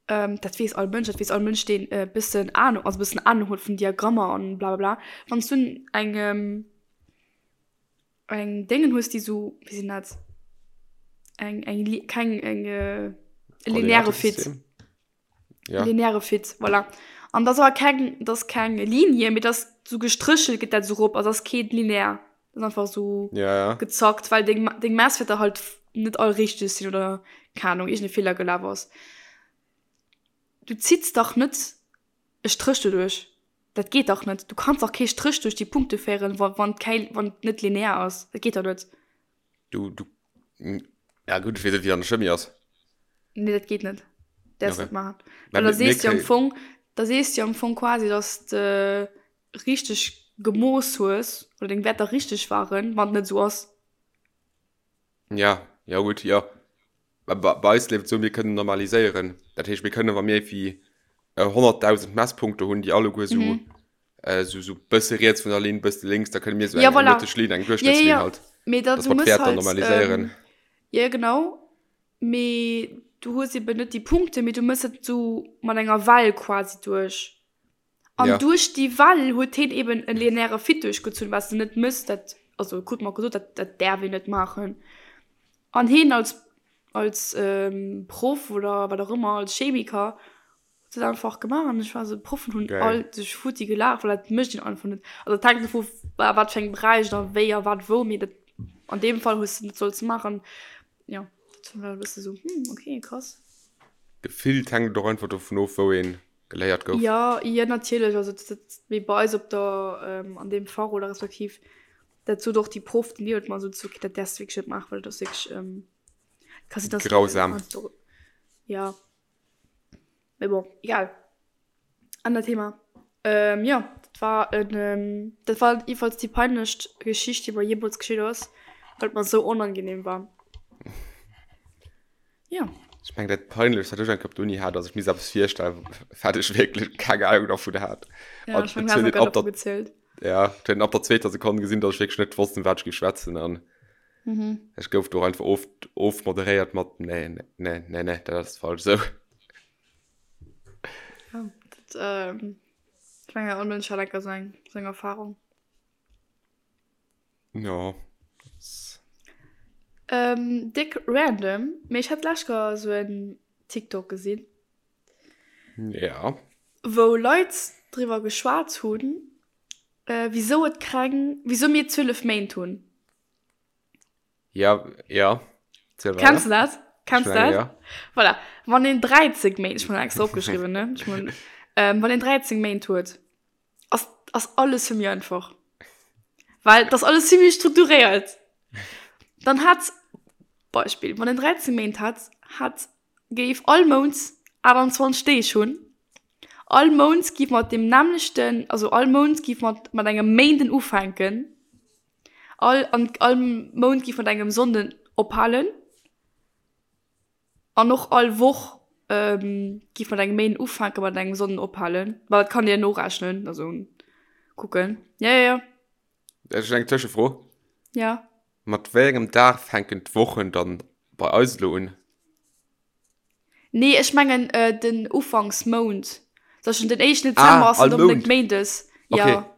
ähm, dat weess all Mënsch, dat weess all Mënsch, deen e bëssen Ahnung, also e bëssen Ahnung huet vun Diagrammer an blablabla, wann s du eng, ähm, Eng Déngen hues, déi sou, wéi sinn dat? Eng, eng, keng, eng, äh, e lineare Fit. Koordinatesystem? Ja. Lineare Fit, voilà. An dat ass awer keng, dat ass keng Linie, mee dat ass sou gestréchelt, geet dat sou rop. Also dat ass kee linear. Dat ass einfach sou Ja, ja. gezackt, well deng, deng Messwäerter halt net all richteg sinn oder, keng Ahnung, iergend e Feeler gelaf ass. Du zitts dach net e Stréch doduerch. Dat geet dach net. Du kanns dach kee Stréch duerch déi Punkte féieren, wa wann kei wann et net linear ass. Dat geet dach net. Du, du, ja gutt, ech weess net, wéi dat an der Chimie ass. Nee, dat geet net. Däerfs Okay. net maachen. Mä Well da mir, mir sees du jo am kréien. Fong, da sees du jo am Fong quasi, dass de richteg gemooss hues oder deng Wäerter richteg waren, wann et net esou ass. Ja, ja gutt, jo. Bei, bei eis leeft et esou, mir kënnen normaliséieren. Dat heescht, mir kënnen, wa mir wéi 100.000 Messpunkte hunn, déi alleguer esou, Mhm. esou, esou bësse riets vun der Linn, bësse lénks, da kënne mir esou Ja, eng, eng voilà. mëtteg Linn, eng Ja, ja, Duerchschnëttslinn ja. halt, Mee da, dass du mer mëss d'Wäerter halt, normaliséieren. ähm, ja, genau. Mee du hues eben net déi Punkte, mee du mëss et esou mat enger Well quasi duerch. An Ja. duerch déi Well huet hien eben e lineäre Fit duerchgezunn, wat s de net mëss, dat, also krut mer gesot, dat, dat däerf een net maachen. An hien als, als Proff oder wat och ëmmer, als Chemiker, huet dat einfach gemaach. An ech war esou, d'Proffen hunn Geil. all sech futti gelaacht, well dat mécht een einfach net. Also dat hänkt dovu a wat fir engem Beräich a wéi a wat wou, mee dat, an deem Fall hues de net sollte maachen. Jo, dat war e bësse sou, hm, okay, krass. Gefillt hänkt et och einfach dovun of, wou een geléiert gouf. Jo, jo natierlech, also dat dat wéi bei eis op der an deem Fach oder respektiv dat sot och déi Proff déi niewent mer sot, okay dat däerfs de wierklech net maachen, well dat ass wierklech ka sinn dass Grausam. Ja mee bon egal anert Thema. Jo dat war en dat war jedenfalls déi peinlechst Geschicht déi mer jeemools geschitt ass, well et mer esou onangenehm war. Ja. Ech meng dat peinlechst wat ech eng Kéier op der Uni hat ass ech misst eppes virstellen wat ech wierklech keng Ahnung dervun hat. Ja, An ech meng et du has huet och een grad ab der dervu gezielt. ja, et huet een ab der zweeter Sekonn gesinn, datt ech wierklech net wosst ëm wat ech géif schwätzen an Mhm. ech gouf do einfach of ofmoderéiert mat nee nee nee nee dat ass falsch esou. Ja, dat ähm, ech mengen all Mënsch hat enker sou eng sou eng Erfahrung. Ja. Ähm, dick random, mee ech hat d'lescht Kéier sou en TikTok gesinn. Ja. Wou Leit driwwer geschwat hunn, wisou et keng, wisou mir 12 Méint hunn. Ja, ja. Ziel weider. Kenns du dat? Kenns du Ich meine, dat? ja. Voilà. Wann een 13 Méint, ech hunn extra opgeschriwwen, ne? Ech mein, ähm, wann een 13 Méint huet, ass, ass alles vill méi einfach. Well das alles ziemlich strukturéiert. Dann hat, Beispiel, wann en 13 Méint hat, hat géif all Mount 28 Deeg hunn. All Mount giff mat dem nämmlechten, also all Mount giff mat, mat engem Méinden ufänken. All, an all Mount giff mat engem Sonnden ophalen. An och all Woch giff mat engem Méinden ufänken, mat engem Sonnden ophalen. Ma dat kann dir norechnen, also kucken. Ja, ja, ja. Ech hunn eng Tëschefro. Ja. Mat wéi engem Dag fänken d'Wochen dann bei eis elo un? Nee, ech mengen den Ufanksmount. Zum Beispill den éischten Dezember Ah, ass all net onbedéngt Mount. Méindes. Okay. Ja,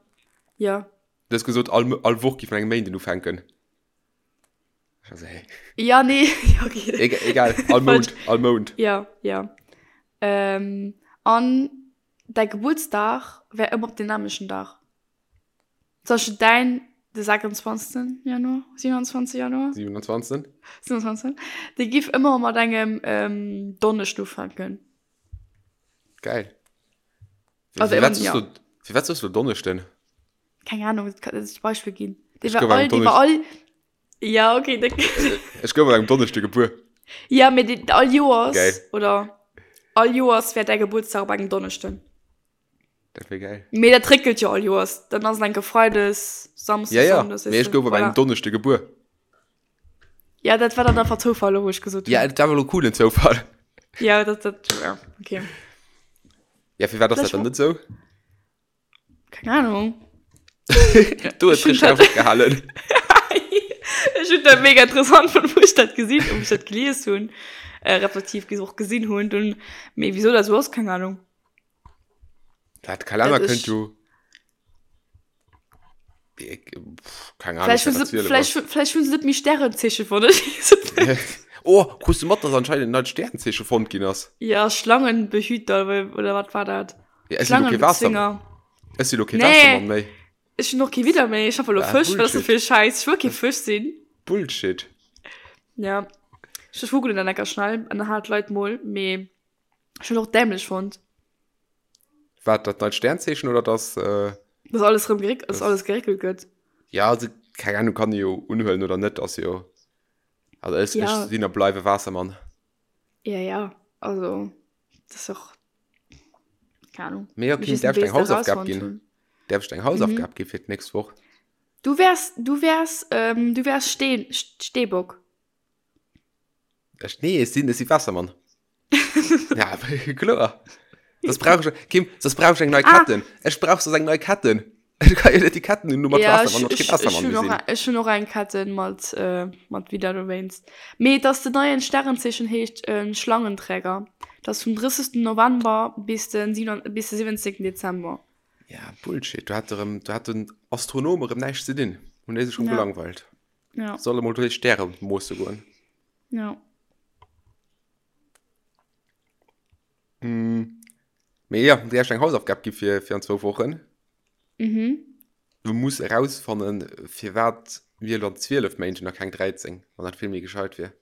ja. Du hues gesot, all, all Woch giff mat engem Méinden ufänken. Also, hey. Ja, nee, ja, okay. Egal, egal. All Mount, all Mount. Ja, ja. Ähm, an däi Gebuertsdag wär ëmmer op den nämlechen Dag. Zum Beispill däin de 26. Januar, 27. Januar? 27. 27. Dee giff ëmmer mat engem ähm, Donneschden ufänken. Geil. Also, Firwat ja. soss du, firwat soss du Donneschden? Keng Ahnung, dat kann das Beispiel ginn. Dee Ech war gouf am all, dee war Donnesch- all. Ja, okay, dat. Ech gouf an engem Donneschde gebuer. Ja, mee dee, all Joers Geil. oder all Joers wär däi Gebuertsdag op engem Donneschden. Dat wär geil. Mee dat réckelt jo all Joers. Dann ass et enke Freides, Samsdes, Ja, ja, Sonndes, mee weess ech de. gouf op engem Voilà. Donneschde gebuer. Ja, dat war dann einfach Zoufall, elo wou ech gesot Ja, hunn. dat war elo coolen Zoufall. Ja, dat, dat, ja, okay. Ja, firwat ass dat Vläch dann net sou? Keng Ahnung. Du hues Ech hunn richtig opgehalen. Ech hunn dat mega interessant fonnt, wou ech dat gesinn, wou ech dat gelies hunn, äh, respektiv och gesinn hunn. Dunn, mee wieso dat sou ass, keng Ahnung. Dat Kalenner Dat kënnt ech- jo. Ich, pff, keine Ahnung, Vläicht hunn wat se, dat vläicht, vläicht hunn se net méi Stärenzeeche fonnt. Ech weess et net. Oh, krus du mat, dass anscheinend en neit Stärenzeeche fonnt ginn ass? Ja, Schlangenbehüter oder, oder wat war dat? Ja, ech sinn lo kee Waasser, Schlangenbezwinger. ech sinn lo kee Nee. Waassermann méi. Ech hunn och kee Widder méi. Ech hoffe lo Ah, Fësch, wat ass dat Bullshit. fir e Schäiss? Ech wëll kee Fësch sinn. Bullshit. Ja. Ech googelen dat enker schnell an dann halen d'Leit mol, mee ech hunn och dämlech fonnt. Wat, dat neit Sternzeechen oder dass, äh, Dass alles rëm geréck, dass Das- alles geréckelt gëtt. ja, also, keng Ahnung, kann ee jo unhuelen oder net, ass jo, also ech, Ja. ech sinn a bleiwe Waassermann. Ja, ja, also, das ist och, keine Ahnung. Mee ja, Mich Kim, ist darf ich ein eng Beest Hausaufgab herausfonnt ginn? hun. Darf ich eng Hausaufgab ginn fir d'nächst Woch? Du wärs, du wärs, ähm, du wärs Steen, Steebock. Ech, nee, ech sinn, ech si Wassermann. ja, kloer. Das brauch ich, Kim, das brauch ich eng nei Ah. Ketten. Ech brauch sos eng nei Ketten. Ech kann jo net déi Ketten hunn, nur mat Ja, Wassermann, ech, mat kee ech, ech Wassermann hunn och, gesinn. ech hunn och eng Ketten mat, äh, mat wéi dat erwähns. Mee dass den neien Sternenzeechen heescht äh, Schlangenträger. Das vum 30. November bis den, bis den 17. Dezember. Ja, Bullshit. Do hat erëm, do hat den Astronom erëm näischt ze dinn. Hunn déi sech rëm Ja. gelangweilt. Ja, Solle mol duerch Stäre moosse goen. ja. Mee ja, dir hast eng Hausaufgab gi fir, fir an zwou Wochen. Mhm. Du muss erausfannen, firwat mir elo an 12 Méint hunn a keng 13, wann dat vill méi gescheit wier.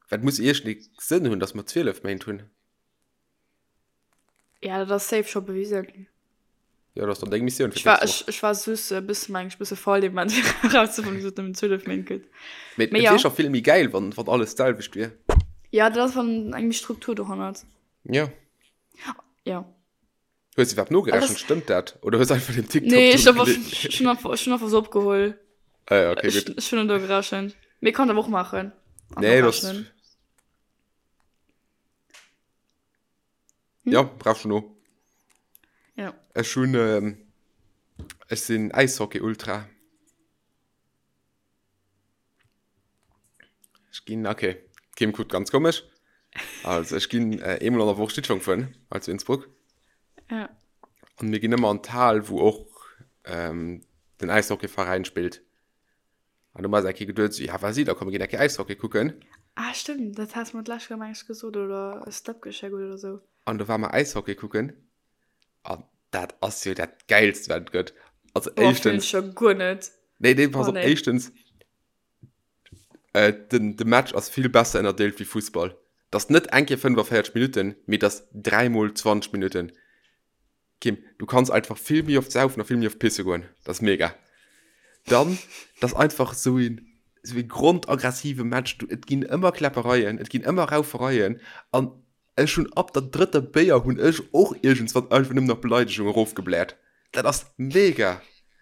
Well et muss iergendee Sënn hunn, datt mer 12 Méint hunn. Ja, dat ass safe scho bewisen. Ja, dat ass dann deng Missioun fir Ech war, d'nächst Woch. ech, ech war sus e bësse meng ech bësse faul dee Moment fir erauszefannen, wieso et nëmmen 12 Méint gëtt. Mee Mee et ja. wier scho vill méi gäil, wann, wann alles d'selwecht wier. Ja, dat ass wann eng méi Struktur dohannert. Ja. Ja. Hues du iwwerhaapt nogerechent? Alles- Stëmmt dat? Oder hues einfach den TikTok Nee, ech do hab einfach, gele- ech hunn einfach, ech hunn einfach so opgeholl. Ah ja, okay, Ech, gutt. ech hunn net nogerechent. Mee kann awer och maachen. An Nee, das. nochrechnen. Ja, brauchst du no. Ja. Ech hunn, ähm, ech sinn Äishockey-Ultra. Ech ginn, okay, Kim kuckt ganz komesch. Also ech ginn äh, eemol an der Woch Schlittschong fueren, hei zu Innsbruck. Ja. An mir ginn ëmmer an d'Hal, wou och ähm, den Äishockeyveräin spillt. An du mer eng Kéier geduet, so, ja, wat si da, komm mir ginn eng Kéier Äishockey kucken. Ah, stimmt, dat has mer d'lescht Kéier meng ech gesot oder e Snap geschéckt oder sou. An do war mer Äishockey kucken. An dat ass jo dat Gäilst, wat et gëtt. Also Boah, fühlen éischtens. ech jo guer net. Nee, nee, pass Oh, op, nee. éischtens, äh, den, de Match ass vill besser ënnerdeelt wéi Fussball. Dat ass net eng Kéier 45 Minutten, mee dat ass dräimol 20 Minutten. Kim, du kanns einfach vill méi oft saufen a vill méi oft pisse goen. Dat ass mega. Dann, dat ass einfach esou een, esou ee grondaggressive Match. Du, et ginn ëmmer Kläppereien, et ginn ëmmer Raufereien an ech hunn ab der drëtter Béier hunn ech och iergendswann einfach nëmmen nach Beleidegung erofgebläert. Dat ass mega.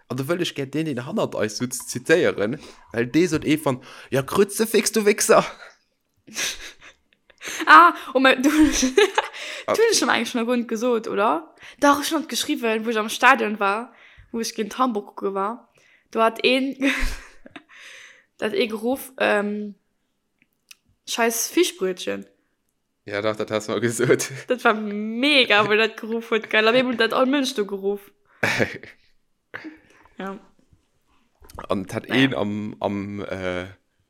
An do wëll ech gär deen, deen hannert eis sutz, zitéieren, well dee sot eefann, Ja, Kruzefix, du Wichser! Ah, oh mein, du, ah. du schon eigentlich schon Grund gesot, oder? Doch, ich schon geschrieben, wo ich am Stadion war, wo ich gegen Hamburg gucke war. Du hat een, dat ee geruff, ähm, scheiß Fischbrötchen. Ja, dach, dat has du mer gesot. Dat war mega, wou dat geruff huet, gell? Op eemol huet dat all Mënsch do geruff. Ja. An et hat een am, am, äh,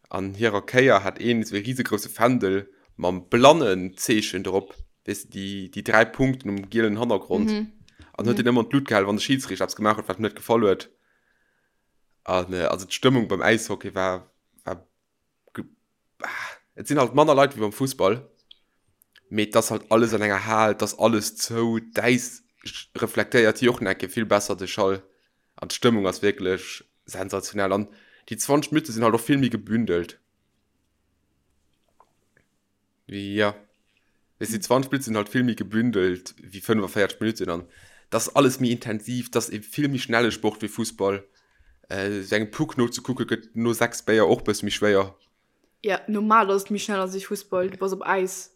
an hirer Kéier hat een esou e risegrousse Fändel mam Blannenzeechen drop, weess de, déi, déi 3 Punkten um gielen Hannergrond. Mhm. An huet deen ëmmer an d'Lut gehalen, wann de Schidsriichter eppes gemaach huet, wat him net gefall huet. An, äh, also d'Stëmmung beim Äishockey war, war Et sinn halt manner Leit wéi beim Fussball, mee et ass halt alles an enger Hal, et ass alles zou, d'Äis reflektéiert jo och nach eng Kéier vill besser de Schall an d'Stëmmung ass wierklech sensationell an déi 20 Minutte sinn halt och vill méi gebündelt. Jo, weess déi 20 Minutte sinn halt vill méi gebündelt wéi 45 Minutten an et ass alles méi intensiv, et ass e vill méi schnelle Sport wéi Fussball. Sou engem Puck nozekucke gëtt no 6 Béier och bësse méi schwéier. Ja, normal ass et méi schnell als wéi Fussball, du bass op Äis.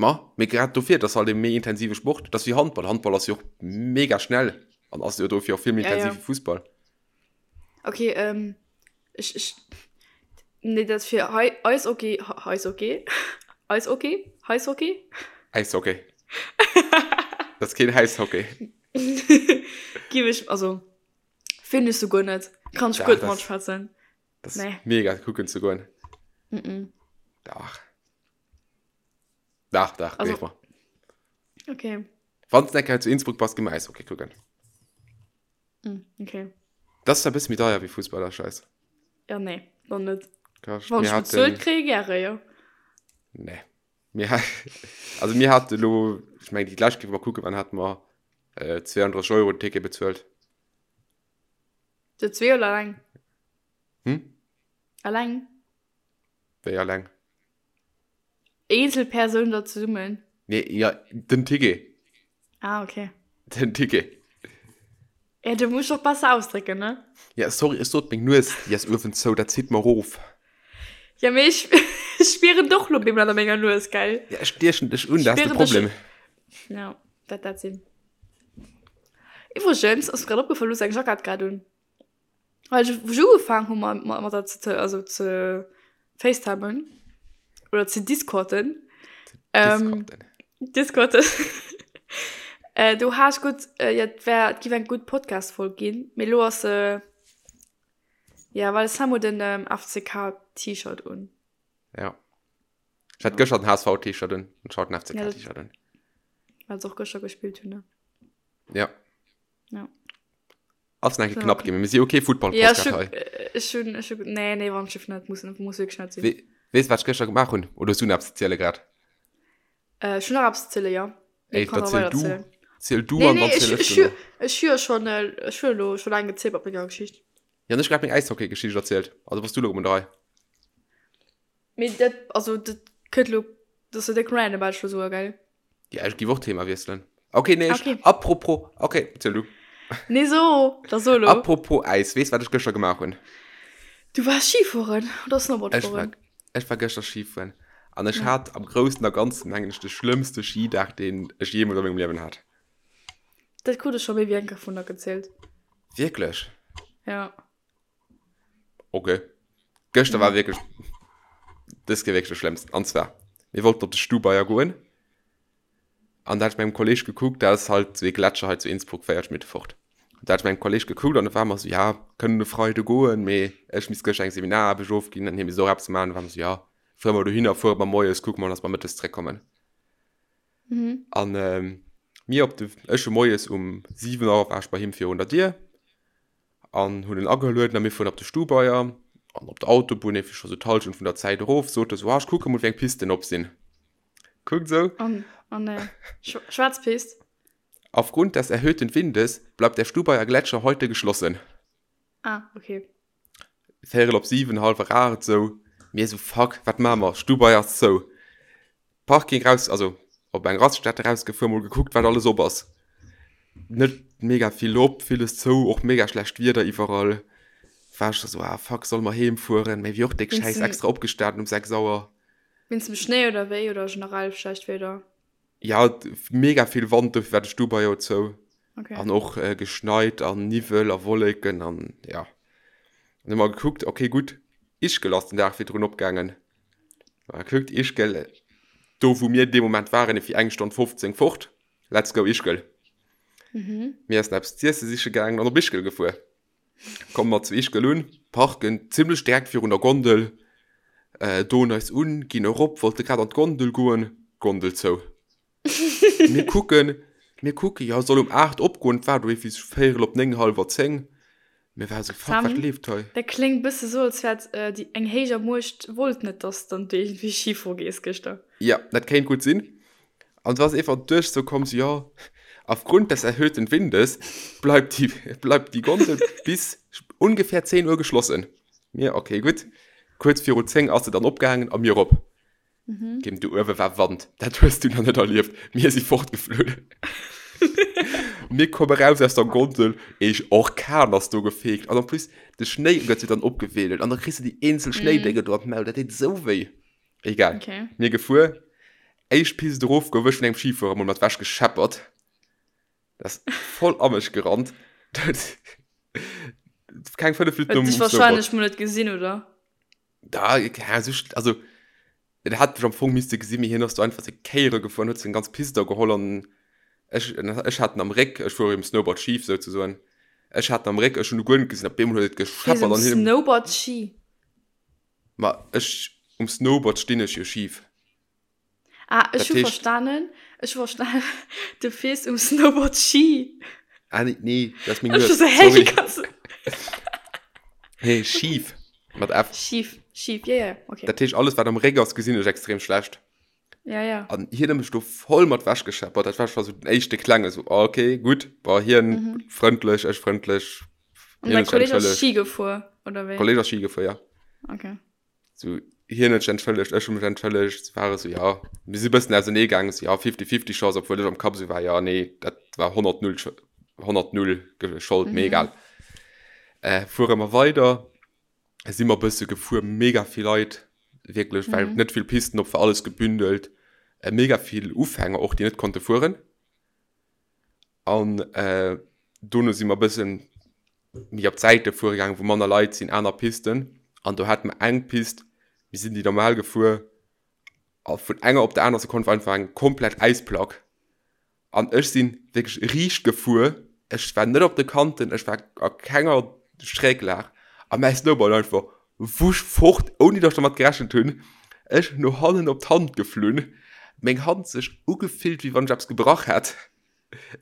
Ma, mee grad dofir, et ass halt e méi intensive Sport. Et ass wéi Handball, Handball ass jo och mega schnell an ass jo dofir och vill méi intensiv wéi Fussball. Ok, ech, ech, nee dat fir hei Eishockey, Eishockey, Eishockey, Eishockey? Äishockey. Dat ass keen Häishockey. Giff ech, also finn ech souguer net, kann ech guer net matschwätzen. Das nee. mega kucken ze goen. Mm -mm. Dach. Dach, dach, also, mal. Okay. Wann du enker zu Innsbruck bass, geh mal Eishockey kucken. Mm, okay. Das ist ein bisschen méi deier wéi Fußball, der Scheiß. Ja, nee, dann net. Wann ich bezuelt kriege, gerne, ja. Nee. Mir, also mir hatten lo, ich meine, die gleich mal gucken, wann hatten wir äh, 32 Euro den Ticket bezuelt. Zu zwee oder alleng? Hm? Alleng? Wéi alleng? Eenzel Persoun oder zesummen? Nee, ja, den Ticket. Ah, okay. Den Ticket. Ja, du musst och besser ausdrécken, ne? Ja, sorry, ech sot meng Nues, déi ass uewen zou, dat zitt mer erof. Ja, mee ech spieren doch lo bemol an menger Nues, gell? Ja, ech stiechen dech un, dat ass de Problem. Ja, dat dat sinn. Iwwregens ass mir grad opgefall, du hues eng Jackett grad un. Well ech, wou ech ugefaangen hu mat, mat, mat der ze, also ze facetimen oder ze discorden. Ähm, discorden. äh, do hat ech gutt, äh, ja, et wär, et giff eng gutt Podcast-Folg ginn, mee lo ass se, ja, well Sam huet en ähm, FCK-T-Shirt un. Ja. Ech hat gëschter den HSV-T-Shirt un, an ech haut den FCK-T-Shirt un. Well se och gëschter gespillt hunn, ne? Ja. Ja. Ass nach knapp ginn, mir si okay Football ja, ech hun, ech hun, ech hun, nee, nee, wann Schiff net muss, muss wirklich net sinn. We, wees wat ech gëschter gemaach hunn? Oder hues du nach eppes ze ziele grad? Äh, ech hunn nach eppes ze ziele, ja. Ey, da ziel du, ziel du nee, an nee, dann ech, ziel ech ech, duerno. Ech hu jo schon, ech hu elo schon laang gezielt mat menger Geschicht. Ja, an ech grad meng Äishockey-Geschicht erzielt. Also bass du elo un der Rei. Mee dat, also dat kënnt elo, dat ass jo déck random, wat ech elo soe, gell? Ja, ech giff och Thema wiesselen. Okay, nee, ech, okay. Apropos, okay, ziel du. Nee, so, da so lo. Apropos Äis, weess wat ech gëschter gemaach hunn? Du waars Skifueren oder Snowboard fueren? Ech war, ech war gëschter Skifueren. An ech ja. hat am Groussen a Ganzen, mengen ech, de schlëmmste Skidag, deen ech jeemools a mengem Liewen hat. Dat krut ech scho méi wéi eng Kéier vun der gezielt. Wierklech? Ja. Okay. Gëschter war wierklech, dës Kéier wierklech de schlëmmsten. An zwar, mir wollten op de Stubaier goen. An da hat ech mat engem Kolleg gekuckt, dat ass halt esou ee Gletscher hei zu Innsbruck, 40 Minutte fort. An da hat ech mat engem Kolleg gekuckt an da ware mer esou, ja, kënnen e Freide goen, mee ech misst gëschter eng Seminaraarbecht ofginn an hie misst och eppes maachen. Da ware mer esou, ja, fuere mer dohinner, fuere mer moies, kucke mer, dass mer mëttes zréckkommen. An mir op de, ech hu moies um 7 Auer war ech bei him virun der Dier. An hunn en agelueden a mir fueren op de Stubaier an op der Autobunn, eefir scho sou d'Hallschent vun der Zäit erof, sot e sou, ah ech kucke mol wéi eng Pisten op sinn. Kuckt sou. An, an äh, schwaarz Pist. Aufgrund des erhöhten Windes bleibt der Stubaier Gletscher heute geschlossen. Ah, okay. Véierel op 7, hallwer 8 sou, mir sou, fuck, wat maache mer, Stubaier ass zou. Parking raus, also op eng Raststätte rausgefuer, mol gekuckt, wat alles op ass. Net mega vill op, villes zou, och mega schlecht Wieder iwwerall. War ech sou, ah fuck, solle mer heem fueren? Mee wier och déck Schäiss, extra opgestanen um 6 Auer. Wéinst dem Schnéi oder wéi? Oder generell schlecht Wieder? Ja, mega vill Wand, dofir war de Stubai jo zou. Okay. An och äh, geschneit an Niwwel a Wolleken an ja. An hu mer gekuckt, okay gutt, Ischgl ass den Dag virdrun opgaangen. Mal gekuckt, Ischgl, do wou mir dee Moment waren, fir eng Stonn 15 fort. Let's go Ischgl. Mhm. Mir essen eppes z'iesse siche gaangen an op Ischgl gefuer. Komme mer zu Ischgl un, parken zimmlech direkt virun der Gondel, äh, doen eis un, ginn erop, wollte grad an d'Gondel goen, Gondel zou. Mir kucken, mir kucken, jo, soll um 8 opgoen, et war do iergendwéi sou véierel op 9, hallwer 10. Mir ware sou, fuck, wat Sam, leeft hei? dat kléngt bësse sou, als wär et déi eng héijer Muecht wollt net, dass dann du iergendwéi Ski fuere gees gëschter. Jo, dat kéint gutt sinn. An du ass einfach duerch sou komm, sou, jo, aufgrund des erhöhten Windes bleibt die, bleibt die Gondel bis ungefähr 10 Uhr geschlossen. Mir, okay, gutt. Kuerz viru 10 ass se dann opgaangen a mir erop. Mhm. Kim, do uewe war Wand. Dat hues du nach net erlieft. Mir si fortgeflunn. Mir komme raus aus der Gondel, eech Orkan ass do gefeegt. An en plus, de Schnéi gëtt jo dann opgewedelt an da kriss du déi eenzel Schnéidénge do an d'Maul. Dat deet esou wéi. Egal. Okay. Mir gefuer. Éischt Pist erof, gouf ech vun engem Schifuerer mol mat wech gescheppert. Dat ass voll a mech gerannt. Keng 5 Minutten Huet nom dech Snowboard. wahrscheinlech mol net gesinn, oder? Da, ja, so, also, en hat mech am Fong misste gesinn, mee hien ass do einfach seng Kéiere gefuer an huet seng ganz Pist da geholl an ech, ech hat en am Réck, ech fuere um Snowboard schif souzesoen, ech hat en am Réck, ech hunn e guer net gesinn, op eemol huet et Fiers gescheppert um an hien. Snowboard Ski? Ma ech, um Snowboard stinn ech jo schif. Ah, ech Dat hu heescht. verstanen, ech hu verstanen, du fiers um Snowboard Ski. Ah, nee, nee, dat ass meng Ech Nues, hu so, hä, sorry. wéi kanns du. Nee, schif, mat F. Schif, schif, ja, ja, okay. Dat heescht, alles wat am Réck ass, gesinn ech extrem schlecht. Ja, ja. An hien huet mech do voll mat wech gescheppert. Dat war scho sou den éischte klenge sou, ah, okay, gutt, bon, hien Mhm. frëndlech, ech frëndlech, An hien dein huet sech Kolleg ass entschëllegt. Ski gefuer, oder wéi? Kolleg ass Ski gefuer, ja. Okay. So, hien huet sech entschëllegt, ech hu mech entschëllegt, war esou, ja, mir si bëssen ausenee gaangen, esou, ja, fifty-fifty Chance, obwuel ech am Kapp esou war, ja, nee, dat war 100 null, 100 null Schold, mee egal. Äh, fuere mer weider, si mer bësse gefuer, mega vill Leit, wierklech, well net vill Pisten op war, alles gebündelt, mega vill Ufänger och, déi net konnte fueren. An dono si mer e bëssen méi op d'Säite fuere gaangen, wou manner Leit sinn, aner Pisten. An do hate mer eng Pist, mir sinn déi normal gefuer a vun enger op der aner Sekonn war einfach eng komplett Äisplack. An ech si wierklech riicht gefuer, ech war net op de Kanten, ech war a kenger Schräglag a mäi Snowboard einfach wusch fort, ouni datt ech dermat gerechent hunn. Ech no hannen op d'Hand geflunn, meng Hand sech ugefillt, wéi wann ech eppes gebrach hätt.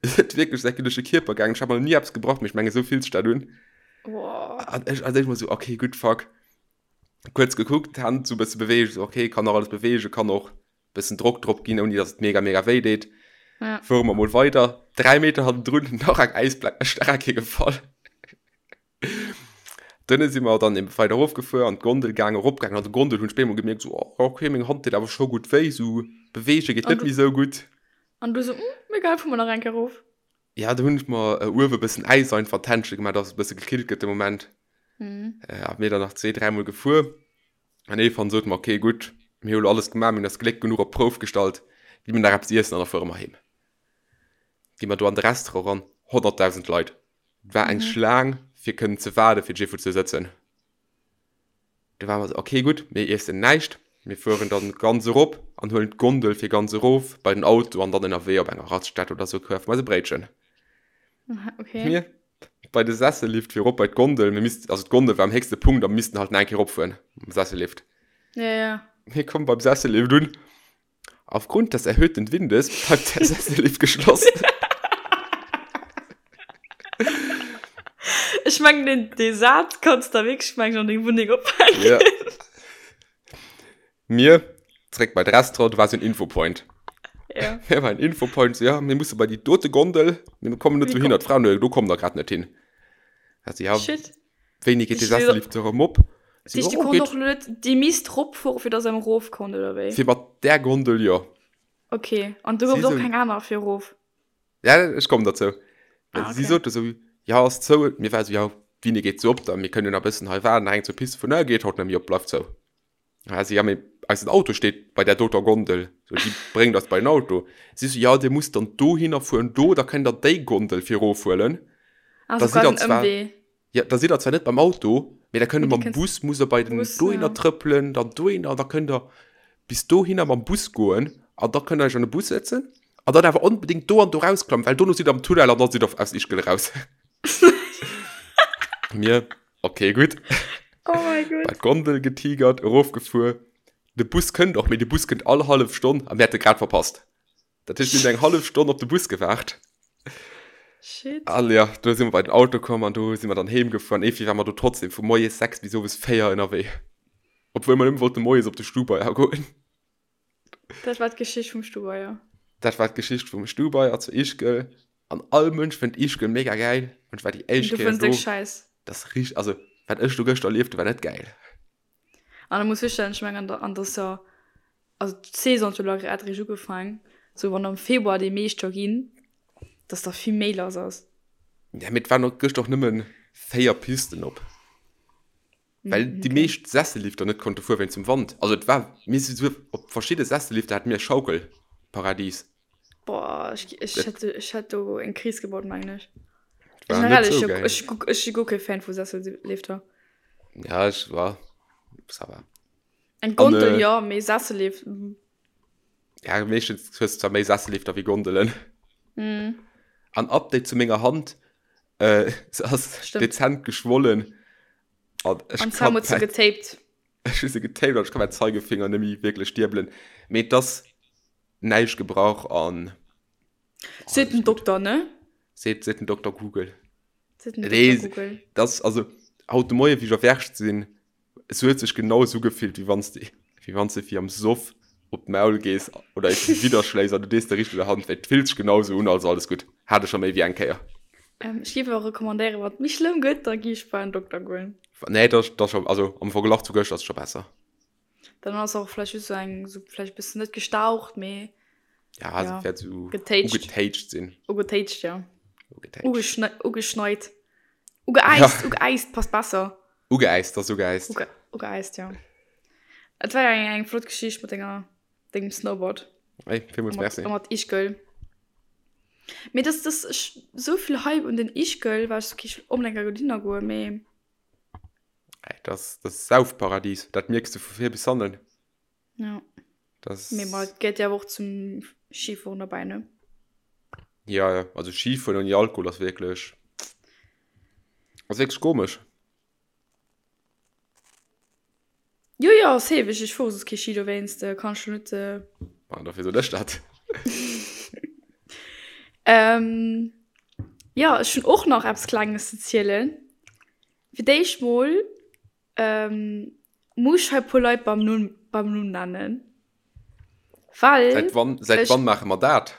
Et huet wierklech säi duerch de Kierper gaangen. Ech hat mer nach ni eppes gebrach, mee ech mengen, esou fillt sech dat un. An ech als éischt mol esou, okay, gutt, fuck. Kuerz gekuckt, d'Hand esou e bësse beweegt, esou, okay, kann nach alles beweegen, kann och e bëssen Drock drop ginn, ouni datt et mega, mega wéi deet. Ja. Fuere mer mol weider. 3 Meter hannendrun nach eng Äisplack, ech nach eng Kéier gefall. Dunne si mer dann eben weider erofgefuer, an d'Gondel gaangen, eropgaangen. An der Gondel hunn ech bemol gemierkt, esou, oh, okay, meng Hand deet awer scho gutt wéi, esou beweege geet An net du méi esou gutt. An du sou, hm, egal, fuer mer nach eng Kéier erof. Ja, do hunn ech mer uewe e bëssen Äis einfach an d'Händche gemaach, dass et e bësse gekillt gëtt de Moment. Mhm. A mir dann nach zwee, dräimol gefuer. An iergendwann sote mer, okay, gutt, mir hu lo alles gemaach, mir hunn eist Gléck genuch op d'Prouf gestallt, gi mir nach eppes iessen an da fuere mer heem. Gi mer do an de Restaurant eran, 100.000 Leit. Et war eng Schlaang, fir kënnen ze waarden, fir Jiffo ze sëtzen. Du ware mer esou, okay, gutt, mir iessen näischt, mir fueren dann ganz erop an huelen d'Gondel fir ganz erof bei den Auto an dann ënnerwee op enger Raststätt oder esou kafe mer eis e Bréitchen. Okay. Mir bei de Sessellift fir erop bei d'Gondel, mir missten, also d'Gondel war am héchste Punkt a mir missten halt nach eng Kéier eropfueren mam Sessellift. Ja, ja. Mir kommen beim Sessellift un, Aufgrund des erhöhten Windes bleibt der Sessellift geschlossen. Ech mengen den dee Saz kanns der wierklech mengen an deng Wunneng ophänken. Ja. Mir zréck bei d'Restaurant, do war sou en Infopoint. Ja. Mir war en Infopoint, so, ja, mir musse bei déi dote Gondel, mir kommen net Wie dohinner. kommt- D'Fra, no, do kommt der grad net hin. Also, ja, Shit. wéini geet de Dich- Sessellift erëm op? Si, Dich, du oh, konnt geet och net déi misst ropfuere fir dass em erof konnt oder wéi? Fir mat där Gondel, jo. Okay, an du Si gouf och sou- keng aner fir erof? Ja, ech kommen derzou. Ah, Si okay. sote sou, ja, ass zou. Mir war sou, ja, wéini geet se op dann? Mir kënnen jo nach e bëssen hei waarden. Nach eng zur Piste vun, ne, geet haut net méi op, bleift zou. Ja, si, ja, mee eisen Auto steet bei där doter Gondel, so, déi bréngt eis bei den Auto. Si so, ja, dir musst dann dohinner fueren, do, da kënnt der déi Gondel fir erofhuelen. Ah, Da so sidd der quasi en zwar, Ëmwee. ja, da sidd der zwar net beim Auto, mee da kënnt der Mee dir mam kënnt Bus, musst der bei den Bus, dohinner ja. trëppelen, dann dohinner, da kënnt der bis dohinner mam Bus goen an da kënnt der iech an de Bus sëtzen an dann awer onbedéngt do an do rausklammen, well dono sidd der am Tunnel an da sidd der aus Ischgl eraus. Mir, Okay, gutt. Oh mein Gott. Bei d'Gondel getigert, erofgefuer. De Bus kënnt och, mee de Bus kënnt all hallef Stonn a mir hätte grad verpasst. Dat heescht, mir hunn eng hallef Stonn op de Bus gewaart. Shit. An ja, do si mer bei den Auto komm an do si mer dann heem gefuer. An iergendwéi ware mer do trotzdem vu moies 6 bis owes 4 ënnerwee. Obwuel mer nëmme wollte moies op de Stubaier goen. Dat war d'Geschicht vum Stubaier. Dat war d'Geschicht vum Stubaier zu Ischgl. An all Mënsch fënnt Ischgl mega gäil. An ech war déi éischt Du Kéier fënns déck do. schäiss. Dat ass richt, also wat ech do gëschter erlieft hu war net gäil. An da muss virstellen, ech mengen an der, an der ass jo, also d'Saison huet jo elo grad eréischt ugefaang, sou wann am Februar déi meescht jo ginn, dass da vill méi lass ass. Ja, mee et waren och gëschter och nëmmen 4 Pisten op. Well déi Okay. meescht Sessellifter net konnte fuere wéinst dem Wand. Also et war, mir si souguer op verschidde Sessellifter hate mir e Schaukelparadies. Boah, ech, ech Dat hätt, ech hätt do eng Kris gebaut, mengen ech. war net Generell, ech, sou ech, gäil. ech, ech si guer kee Fan vu Sessellifter. Ja, ech war, ça va. Eng An, Gondel, äh, jo, mee Sessellift, mm. Ja, meeschtens hues du zwar méi Sessellifter wéi Gondelen. Mm. An Update zu menger Hand, äh, se ass Stimmt. dezent geschwollen. An ech An Sam kann huet se mäin, getaped. ech hu se getaped an ech kann mäin Zeigefinger net méi wierklech diebelen. Mee et ass näischt gebrach an Seet alles den gutt. Dokter, ne? Seet, seet den Dokter Google. Seet den Nee, Dokter Google. das, also haut de Moie wéi ech erwächt sinn, es huet sech genau esou gefillt, wéi wann s de, wéi wann s de fir am Soff op d'Maul gees oder eppes widderschléis an du dees der riicht un der Hand wéi. Et fillt sech genau esou un, also alles gutt. Hat ech scho méi wéi eng Kéier. Ähm, ech géif awer recommandéieren, wann et méi schlëmm gëtt, da gi ech bei en Dokter goen. Nee, dat ass scho, also am Verglach zu gëschter ass et scho besser. Dann ass och vläicht just sou eng, sou vläicht bëssen net gestaucht, mee Ja, se ja, wäert sou getéitscht. ugetéitscht sinn. Ugetéitscht, ja. Ugetéitscht. Ugeschne ugeschneit. Ja. Ugeäist, ugeäist passt besser. Ugeäist, ass ugeäist. Uge ugeäist, ja. Et war eng, eng flott Geschicht mat denger, dengem Snowboard. Ey, villmools Mat, merci. mat Ischgl. Mee das, das, ech, sou vill Hype un den Ischgl, war ech sou, okay, ech wëll onbedéngt eng dohinner goen, mee. Ey, das, das Saufparadies, dat mierks du vu vir bis hannen. Ja. Das Mee ma et gehéiert jo awer och zum Skifueren derbäi, ne? Ja, ja, also Skifueren ouni Alkohol ass wierklech, ass wierklech komesch. Jo, jo, safe, ech, ech fuere soss kee Ski, dowéinst kann ech lo net. Ah, dofir soen ech dat. Ähm, jo, ech hunn och nach eppes Klenges ze zielen. Fir d'éischt mol muss ech hei e puer Leit beim Numm, beim Numm nennen, well Säit wann, säit ech. wann maache mer dat?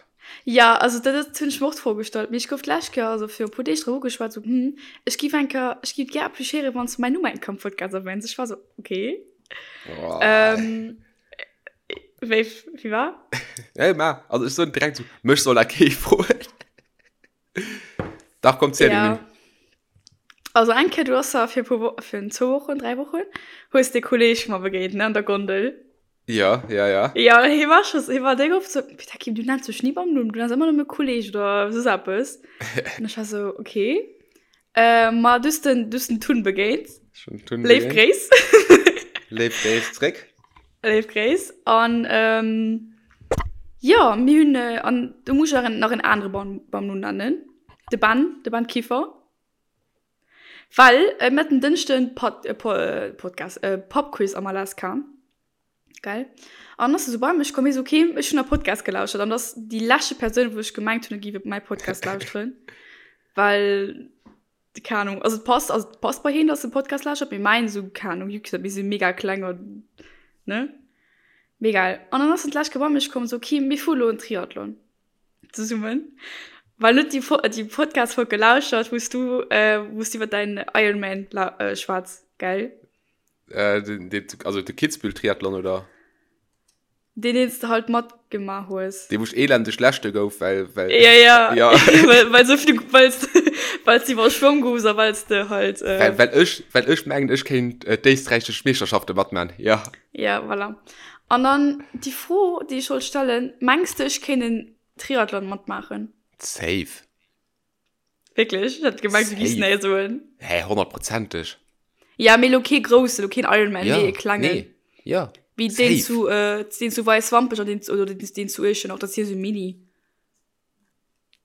Ja, also dat dat hunn ech mer och d'Fro gestallt, mee ech gouf d'lescht Kéier, also viru e puer Deeg drop ugeschwat, sou, hm, ech giff eng Kéier, ech giff gär appreciéieren, wann s du mäin Numm eng Kéier am Podcast erwäns. Ech war sou, okay. Oh. Ähm, wéi, wéi war? Nee, ma, also ech soen direkt sou, mech soll dat kee froen. Dach, komm, ziel den Ja. Numm. Also eng Kéier, du ass da fir e puer Wo-, fir zwou Wochen, dräi Wochen, hues de Kolleg mer begéint, ne, an der Gondel. Ja, ja, ja. Ja, hie war scho, hie war déck oft sou, Peter Kim, du nenns mech ni beim Numm, du nenns ëmmer nëmme Kolleg oder soss eppes. An ech war sou, okay. Äh, ma du hues den, du hues den Tun begéint. Ech hunn den Tun Léif begéint. Gréiss. Léif Gréiss zréck. Léif Gréiss. An ähm, jo, mir hunn, an do muss ech nach en anere beim, beim Numm nennen, de Ben, de Ben Kieffer. Well mir haten Dënschden Pod, Podcast, Pubquiz am Alaska. Gell? An ass se sou bei mech komm, hie sou, okay, ech hunn e Podcast gelauschert. An dat ass déi leschte Persoun, wou ech gemengt hunn, e géif mäi Podcast lauschteren. Well, keng Ahnung, also et passt, also et passt bei hien, dass e Podcast lauschtert, mee mäin esou, keng Ahnung, juckt net, mir si mega kleng an, ne? Mee egal. An dann ass en d'lescht Kéier bei mech komm, sou, okay, mir fuere lo en Triathlon. Zesummen. Well net déi, déi Podcast-Folg gelauschert, wou s du, wou s du iwwer däin Ironman schwätz, gell? Äh, den, den, also de Kitzbühel-Triathlon, oder? Deen deen s de halt matgemaach hues. Dee wou ech elendeg Leschte gouf, well, well. Ja, ja. Ja. well, well so vill, well s well s de iwwer Schwong goufs a well s de halt. Äh, well, well ech, well ech mengen, ech kéint äh, d'éisträichesch Meeschterschafte matman, ja. Ja, voilà. An dann déi Fro, déi ech wollt stellen, Mengs de, ech kéint en Triathlon matmaachen? Safe. Wierklech? Ech hat gemengt, du giffs nee soen. Hä, honnertprozenteg. Ja, mee lo kee groussen, lo keen Ironman, ja, mee e klengen. Nee, ja. Wéi deen zu, äh, deen zu Weiswampech an deen, oder deen, deen zu Iechternach, dat ass jo sou mini.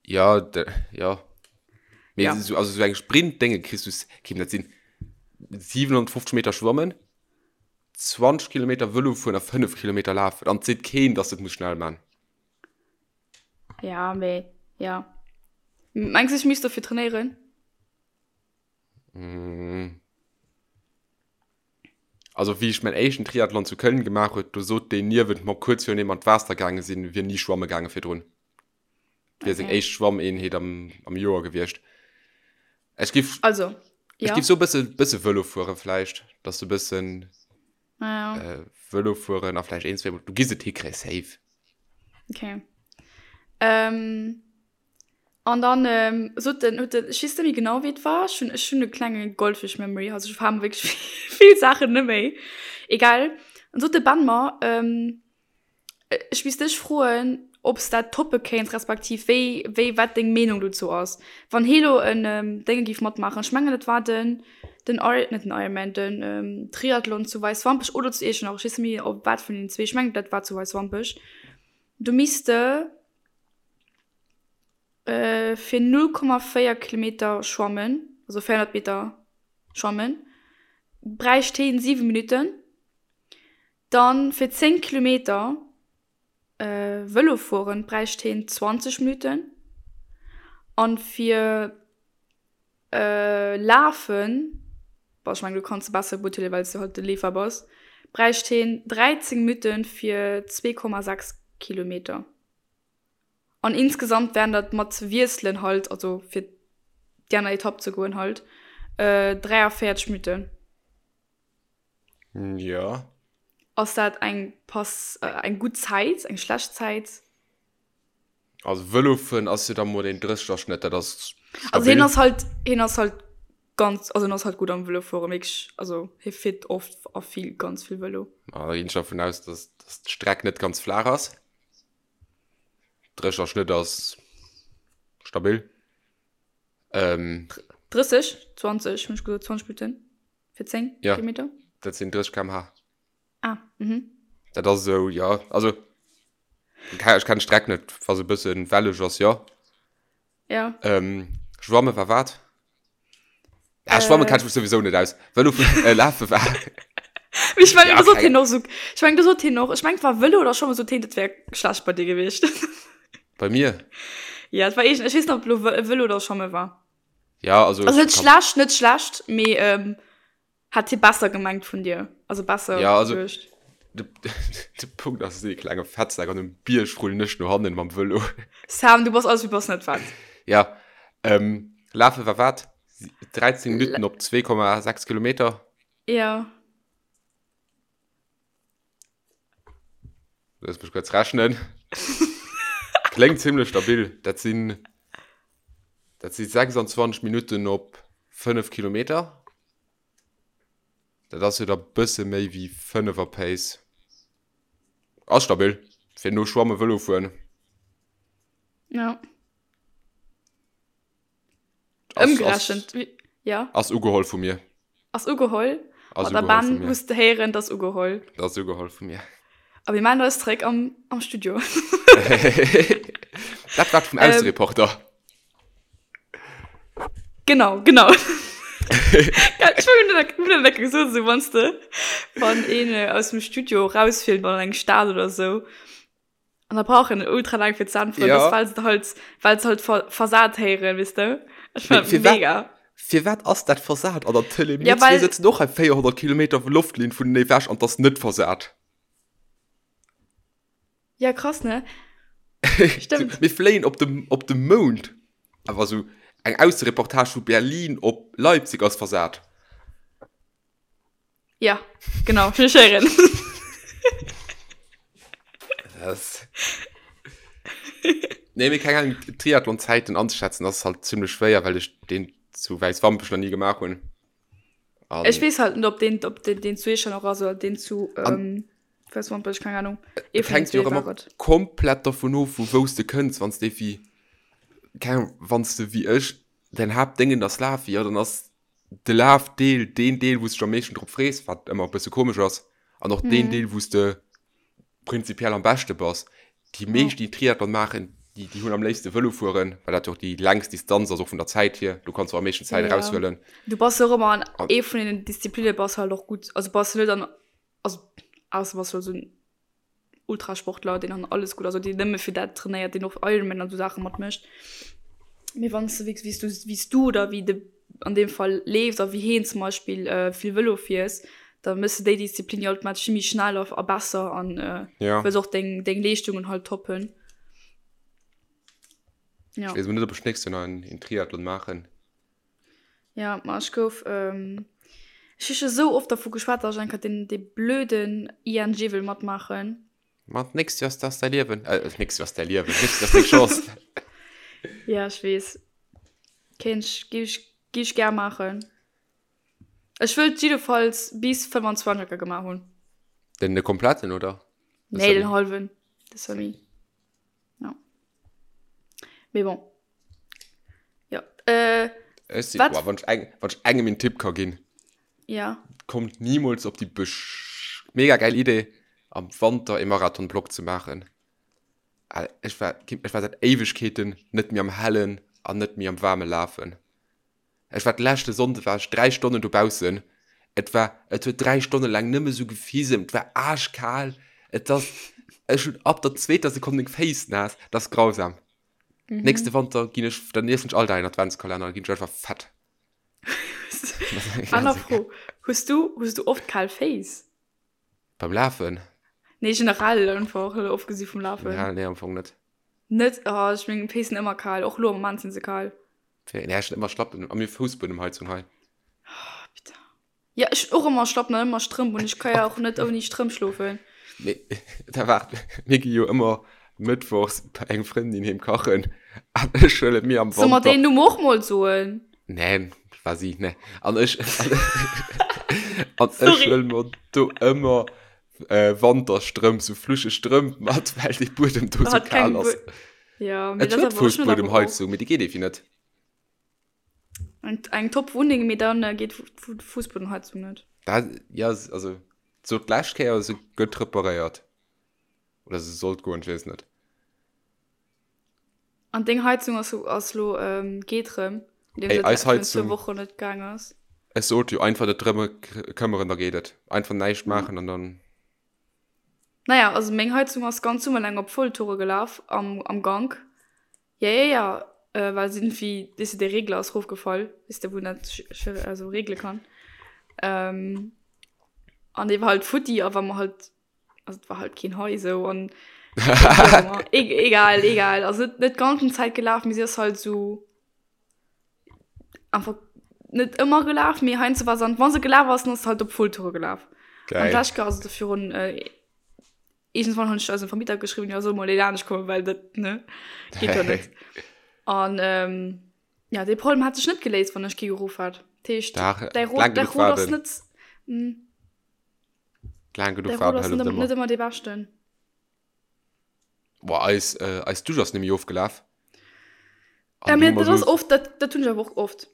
Ja, de, ja. Mee Ja. so, also so eng Sprint-Dénge kriss du, kim, dat sinn 750 Meter schwammen, 20 Kilometer Vëlo fueren a 5 Kilometer lafen. An et seet keen, dass du et muss schnell man. Ja, mee, ja. Mengs du, ech misst dofir trainéieren? Mm. Also wéi ech mäin éischten Triathlon zu Köln gemaach huet, do sot deen niewent mer kuerz virun deem mer an d'Waasser gaange sinn, wier ni schwamme gaange virdrun. Et wier seng Okay. éischt Schwammeenheet am, am Joer gewiescht. Ech giff, Also, ech ja. giff sou e bësse, bësse Vëlo fuere vläicht, dass du e bëssen Ja. äh, Vëlo fueren a vläicht een, zweemol, du giss et hikréien, safe. Okay. Ähm, an dann ähm, sot den, huet den, ech weess net méi genau wéi et war, ech hunn, ech hunn e klenge Goldfisch-Memory, also ech verhale mer wierklech vill Saachen net méi. Egal. An sot de Ben mer, ähm, ech misst dech froen, ob s dat toppe kéints, respektiv wéi, wéi, wat deng Meenung dozou ass, wann hee lo en ähm, Dénge géif matmaachen. Ech mengen et war den, den Iron, net den Ironman, den ähm, Triathlon zu Weiswampech oder zu Iechternach, ech weess net méi op wat vun den zwee, ech mengen dat war zu Weiswampech. Du misst de äh, fir 0,4 Kilometer schwammen, also 400 Meter schwammen, bräicht heen 7 Minutten. Dann fir 10 Kilometer äh, Vëlo fueren bräicht heen 20 Minutten. An fir Lafen, bon ech mengen du kanns se besser beurteelen well s du halt de Leefer bass, bräicht heen 13 Minutten fir 2,6 Kilometer. An insgesamt wären dat mat Wiesselen halt, also fir déi aner Etapp ze goen halt, 43 Minutten. Jo. Ass dat eng pass eng gutt Zäit, eng schlecht Zäit? Also Vëlo fueren ass jo da mol een 30er Schnëtt, dat ass stabil. Also hien ass halt, hien ass halt ganz, also hien ass halt gutt am Vëlo fueren, wierklech, also hie fiert oft a vill, ganz vill Vëlo. Ma da ginn ech dervun aus, dass, dass d'Streck net ganz flaach ass. 30er Schnëtt ass stabil. Ähm. 30, 20 hunn ech gesot, 20 Minutten fir 10 Ja, Kilometer. dat sinn 30 km/h. Ah, mhm. Dat ass esou, ja, also ech kennen d'Streck net, wa se e bëssen welleg ass, jo. Ja. Ähm, schwamme war wat? Ja, schwamme kenn ech mech souwisou net aus. Vëlo äh, lafe war. Mee ech mengen, Ja, do sot keng- hien och sou, ech mengen, do sot hien och, ech mengen, et war Vëlo oder Schwammen, sot hien, dat wär schlecht bei dir gewiescht. Bei mir? Ja, et war eegen, ech weess net, ob lo Vë- Vëlo oder Schwamme war. Ja, also. Also net kann- schlecht, net schlecht, mee ähm, Hat hie besser gemengt vun dir? Also besser Ja, also geduecht? de, de Punkt ass, ech sinn e klenge Fettsak an um Bierg rullen ech no hannen mam Vëlo. Sam, du bass alles, du bass net fett. Ja, ähm, lafe war wat? 13 Minutten op 2,6 Kilometer? Ja. Looss mech kuerz rechnen. Kléngt zimmlech stabil. Dat sinn, dat si 26 Minutten op 5 Kilometer. Dat ass jo da bësse méi wéi 5 er Pace. Ass stabil fir no Schwamme Vëlo fueren. Ja. Ass, Ëmgerechent, ass, ja. Ass ugeholl vu mir. Ass ugeholl? Ass Ma der ugeholl Ben vu mir. muss de héieren, 't ass ugeholl. Dat ass ugeholl vu mir. A mir maachen eis zréck am, am Studio. Dat war vum Aussereporter. Genau, genau. Ech hunn dat hunn dat gesot, esou wann s de, wann een aus dem Studio rausfilmt an eng Stad oder esou. An da brauch en ultra laang fir ze äntweren, Ja. das well se halt, well se halt ver versat héieren, weess de? Ech Mee fand firwat, mega. firwat ass dat versat an der Tëlee? Mir Ja, zwee well. sëtzen och hei 400 Kilometer Loftlinn vun ewech an 't ass net versat. Ja, krass, ne? Stimmt. Mir fléien op de, op de Mound, awer sou eng Aussereportage vu Berlin op Leipzig ass versat. Ja, genau, ech héieren. Das. Nee, mee keng Ahnung, Triathlon-Zäiten anzeschätzen ass halt zimmlech schwéier, well ech deen zu Wäiswampech nach ni gemaach hunn. An Ech weess halt net, ob deen, ob deen, deen zu Iechternach ass oder deen zu ähm, Wäiswampech, keng Ahnung. Ee vun den hänkt jo zwee och war ëmmer et. komplett dervun of, vu wou s de kënns. Wann s de wéi, keng Ahnung, wann s de wéi ech däin Haaptdéngen ass Lafen, jo, dann ass de Lafdeel deen Deel, wou s de dech am meeschten drop frees, wat ëmmer e bësse komesch ass, an och deen Deel, wou s de prinzipiell am beschte bass. Déi meescht, déi Triathlon maachen, déi, déi hunn am léifste Vëlo fueren, well dat jo och déi längst Distanz ass, och vun der Zäit hier. Du kanns och am meeschten Zäit Ja. eraushuelen. Du bass jo och ëmmer an ee vun den Disziplinne bass halt och gutt. Also bass du net an, also ausser bass du esou en Ultrasportler, deen an alles gutt ass oder deen nëmme fir dat trainéiert, deen och Ironman an esou Saache matmécht. Mee wann s de wéi s du, wéi s du oder wéi de an deem Fall leefs a wéi heen zum Beispill vill Vëlo fiers, da méchs de déi Disziplin jo automatesch vill méi schnell a besser an Ja. wëlls och deng, deng Leeschtungen halt toppen. Ja. Ech weess emol net, ob ech d'nächst Joer nach en Triathlon maachen. Ja, ma ech gouf, ech hu scho sou oft dervu geschwat, datt ech eng Kéier deen, dee blöden ING wëll matmaachen. Ma d'nächst Joer ass dat däi Liewen. Äh, d'nächst Joer ass däi Liewen, d'nächst Joer ass deng Chance. Ja, ech weess. Kéint ech, géif ech, géif ech gär maachen. Ech wëllt jiddefalls bis 25 enker gemaach hunn. Den de kompletten, oder? De Nee, den hallwen, de Semi. Ja. Mee bon. Ja. Äh, Ech si, wat? boah, wann ech eng, wann ech engem een Tipp ka ginn. Ja. Kommt niemals op déi besch mega geil Idee, am Wanter ee Marathon-Block ze maachen. Ech war, ech war säit Éiwegkeeten net méi am Hellen an net méi am Waarme lafen. Ech war d'leschte Sonnde war ech 3 Stonnen dobaussen. Et war, et huet 3 Stonne laang nëmme sou gefisemt, et war aaschkal, et ass, ech hunn ab der zweeter Sekonn meng Féiss naass, dat ass grausam. Nächste Wanter ginn ech, dann iessen ech all Dag een Adventskalenner, dann ginn ech einfach fett. Aner Fro, Hues du, hues du oft kal Féiss? Beim Lafen? Nee, generell einfach, ofgesi vum Lafen. Generell, nee, am Fong net. Net? Oh, ech meng Féiss sinn ëmmer kal, och lo am Moment sinn se kal. Nee, ech hunn ëmmer Schlappen a mir Foussbuedemheizung hei. Oh, bitter. Ja, ech hunn och ëmmer Schlappen an ëmmer Strëmp un. Ech ka ja och net ouni Strëmp schlofen. Nee, da waart, mir gi jo ëmmer mëttwochs bei eng Frëndin heem kachen an ech huele mir am Soll mer Wanter. deen Numm och mol soen? Neen, war si, ne. An ech, an ech Sorry. huele mer do ëmmer äh, Wanterstrëmp, sou fluscheg Strëmp mat, well dee Buedem do sou Hat keng kal ass. Bu Ja, mee Et dat huet awer, ech hunn dat awer och. Fussbuedemheizung, mee déi geet evi net. Eng, eng top Wunneng, mee dann äh, geet d'Fussbuedenheizung net. Dat, ja, also, sou d'lescht Kéier, se gëtt reparéiert. Oder se sollt goen, ech weess net. An deng Heizung ass, ass lo, ähm, geet rëm, nodeem Ey, se eis virun zwou Heizung, Wochen net gaang ass. ech sot jo, einfach net drëmme këmmeren, da geet et. Einfach näischt Ja. maachen an dann. Naja, also meng Heizung ass ganz Summer laang op Volltoure gelaf am, am Gank. Ja, ja, ja, äh, well se irgendwie, weess de, dee Regler ass rofgefall, weess de, wou een dat also regle kann. Ähm, an dee war halt futti a wa mer halt, also et war halt keen hei sou an e egal, egal, also net, net ganzen Zäit gelaf, mee si ass halt sou einfach net ëmmer gelaf, mee heiansdo war se an, wa se gelaf ass, dann ass se halt op Volltoure gelaf. An Geil. d'lescht Kéier, also virun, äh, Iergendwann hunn ech eisem Vermieter geschriwwen, jo, soll mol een anescht kommen, well dat, ne, geet jo net. An ähm, ja, dee Problem hat sech net geléist, wann ech kee geruff hat. Dat heescht, Dach, däi Rot, laang däi genuch Rot ass waarden. net, mm, Laang genuch däi Rot waarden ass hëlleft net, ëmmer. net ëmmer dee beschten. Boah, eis, äh, eis Dusch ass nemmi ofgelaf. Ja, An mee du hu mer dat ass so, oft, dat, dat hunn ech awer och oft.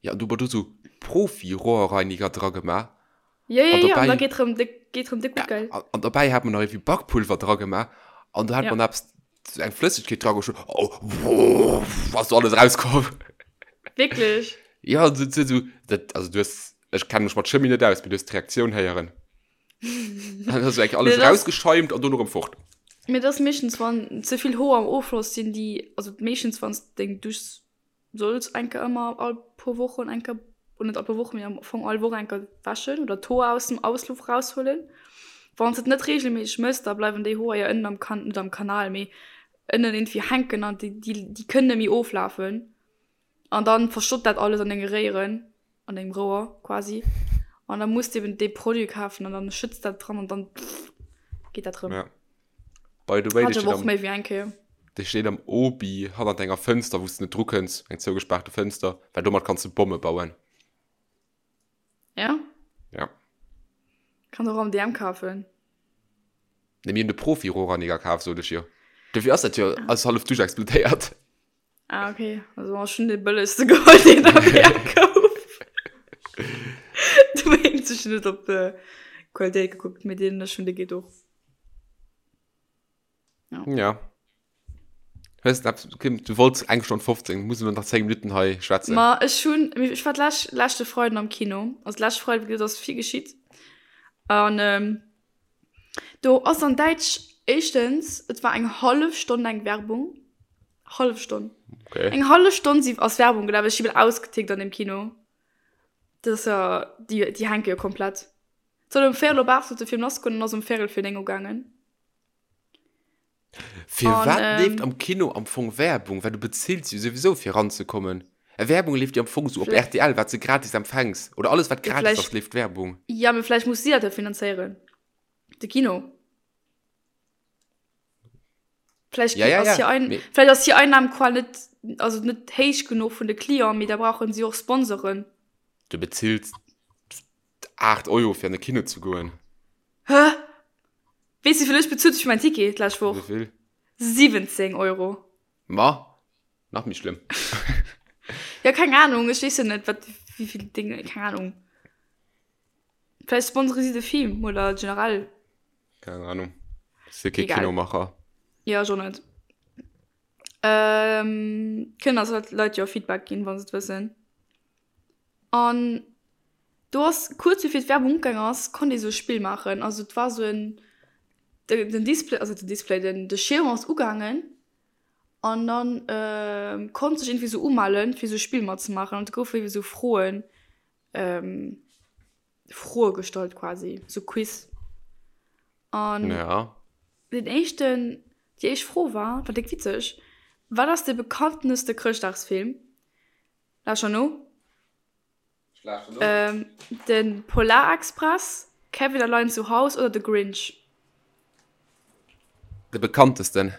ja, an du hu mer do so Profi-Rohrreiniger dra gemaach. Ja, ja, An ja, an da dobäi, geet rëm déck, geet rëm déck gutt, gell? an, an dobäi hat mer nach irgendwie Bakpulver dra gemaach. An do hat Ja. mer nach eppes, so eng Flëssegkeet dra geschott. Oh, wuff, ass do alles rauskomm. Wierklech? Ja, so, so, so, dat, also du hues, ech kenne mech mat Chemie net aus, mee du hues d'Reaktioun héieren. Dann ass eigentlich alles Nee, das- rausgeschäumt an dono rëm fort. Mee dat ass meeschtens, wann ze vill Hoer am Offloss sinn, déi, also meeschtens wann s deng Dusch Solls enker ëmmer all puer Wochen enker, oder net all puer Wochen, mee am Fong all Woch enker wäschen oder d'Hoer aus dem Ausluff raushuelen. Wann s et net reegelméisseg mëss, da bleiwen déi Hoer jo ënnen am Kan, net am Kanal, mee ënnen irgendwie hänken an déi, déi, déi kënnen net méi oflafen. An dann verstoppt dat alles an denge Réieren, an dengem Rouer quasi. An da muss de eben dee Produit kafen an dann schëtts dat dran an dann geet dat rëm. Ja. By the way, Hat dee ech steet awer och am, méi wéi eng Kéier. dee steet am Obi hannert enger Fënster, wou s de net drukënns, eng zougespaarte Fënster, well domat kanns de Bomme bauen. Ja? Ja. Kann och am DM kafen. Ne, mir hunn de Profi-Rohrreiniger kaf, sot ech jo. Dofir ass dat jo alles hallef duerch explodéiert. Ah, okay. Also ech hunn dee bëllegste geholl, deen am DM gouf. Dowéinst, ech hunn net op d'Qualitéit gekuckt, mee deen ech hunn, dee geet och. Ja. Ja. Hues du eppes, Kim, du wollts eng Stonn 15, muss elo nach 10 Minutten hei schwätzen. Ma ech hunn, ech war d'lescht, leschte Freiden am Kino. Also d'lescht Freiden, wéi gesot, ass vill geschitt. An ähm, do ass an Däitsch éischtens, et war eng hallef Stonn eng Werbung. Hallef Stonn. Okay. Eng hallef Stonn si ass Werbung gelaf. Ech si bal ausgetickt an deem Kino. Dat ass jo, déi, déi hänke jo komplett. Et soll um véierel op 8 sollt de Film lassgoen an ass um véierel vir 9 ugaangen. Firwat An, leeft ähm, am Kino am Fong Werbung? Well du bezills jo souwisou fir ranzekommen. Ä Werbung leeft jo am Fong sou op Vläicht- rtl, wat s de gratis empfänks. Oder alles wat Ja, gratis vläicht- ass leeft Werbung. Ja, mee vläicht muss si dat jo finanzéieren, de Kino. Vläicht Ja, ja, ass ja, hir Ein mee- vläicht ass hir Einnahmequell net, also net héich genuch vun de Clienten, mee da brauchen si och Sponsoren. Du bezills 8 Euro fir an de Kino ze goen. Hä? Weess wéivill ech bezuelt hu fir mäin Ticket d'lescht Woch? Wéivill? 17 Euro. Ma, nach méi schlëmm. Ja, keng Ahnung, ech weess jo net, wat, wéivill Dinge, keng Ahnung. Vläicht sponsere si de Film oder generell. Keng Ahnung. Si kee Egal. Kinomacher. Ja, ech och net. Ähm, kënnen eis Leit jo Feedback ginn, wa se et wëssen. An do ass kuerz bevir d'Werbung ugaang ass, konnt ee sou e Spill maachen. Also et war sou en, den Display, also den Display, den de Schierm ass ugaangen an dann konnt sech iergendwéi sou umellen, fir sou e Spill matzemaachen. An et goufe iergendwéi sou Froen, Froe gestallt quasi, sou Quiz. An den éischten, déi éischt Fro war, war déck witzeg, Wat ass de bekannteste Chrëschtdagsfilm? Lauschter no. Ähm, den Polarexpress, Kevin allein zu Haus oder de Grinch? De bekanntesten.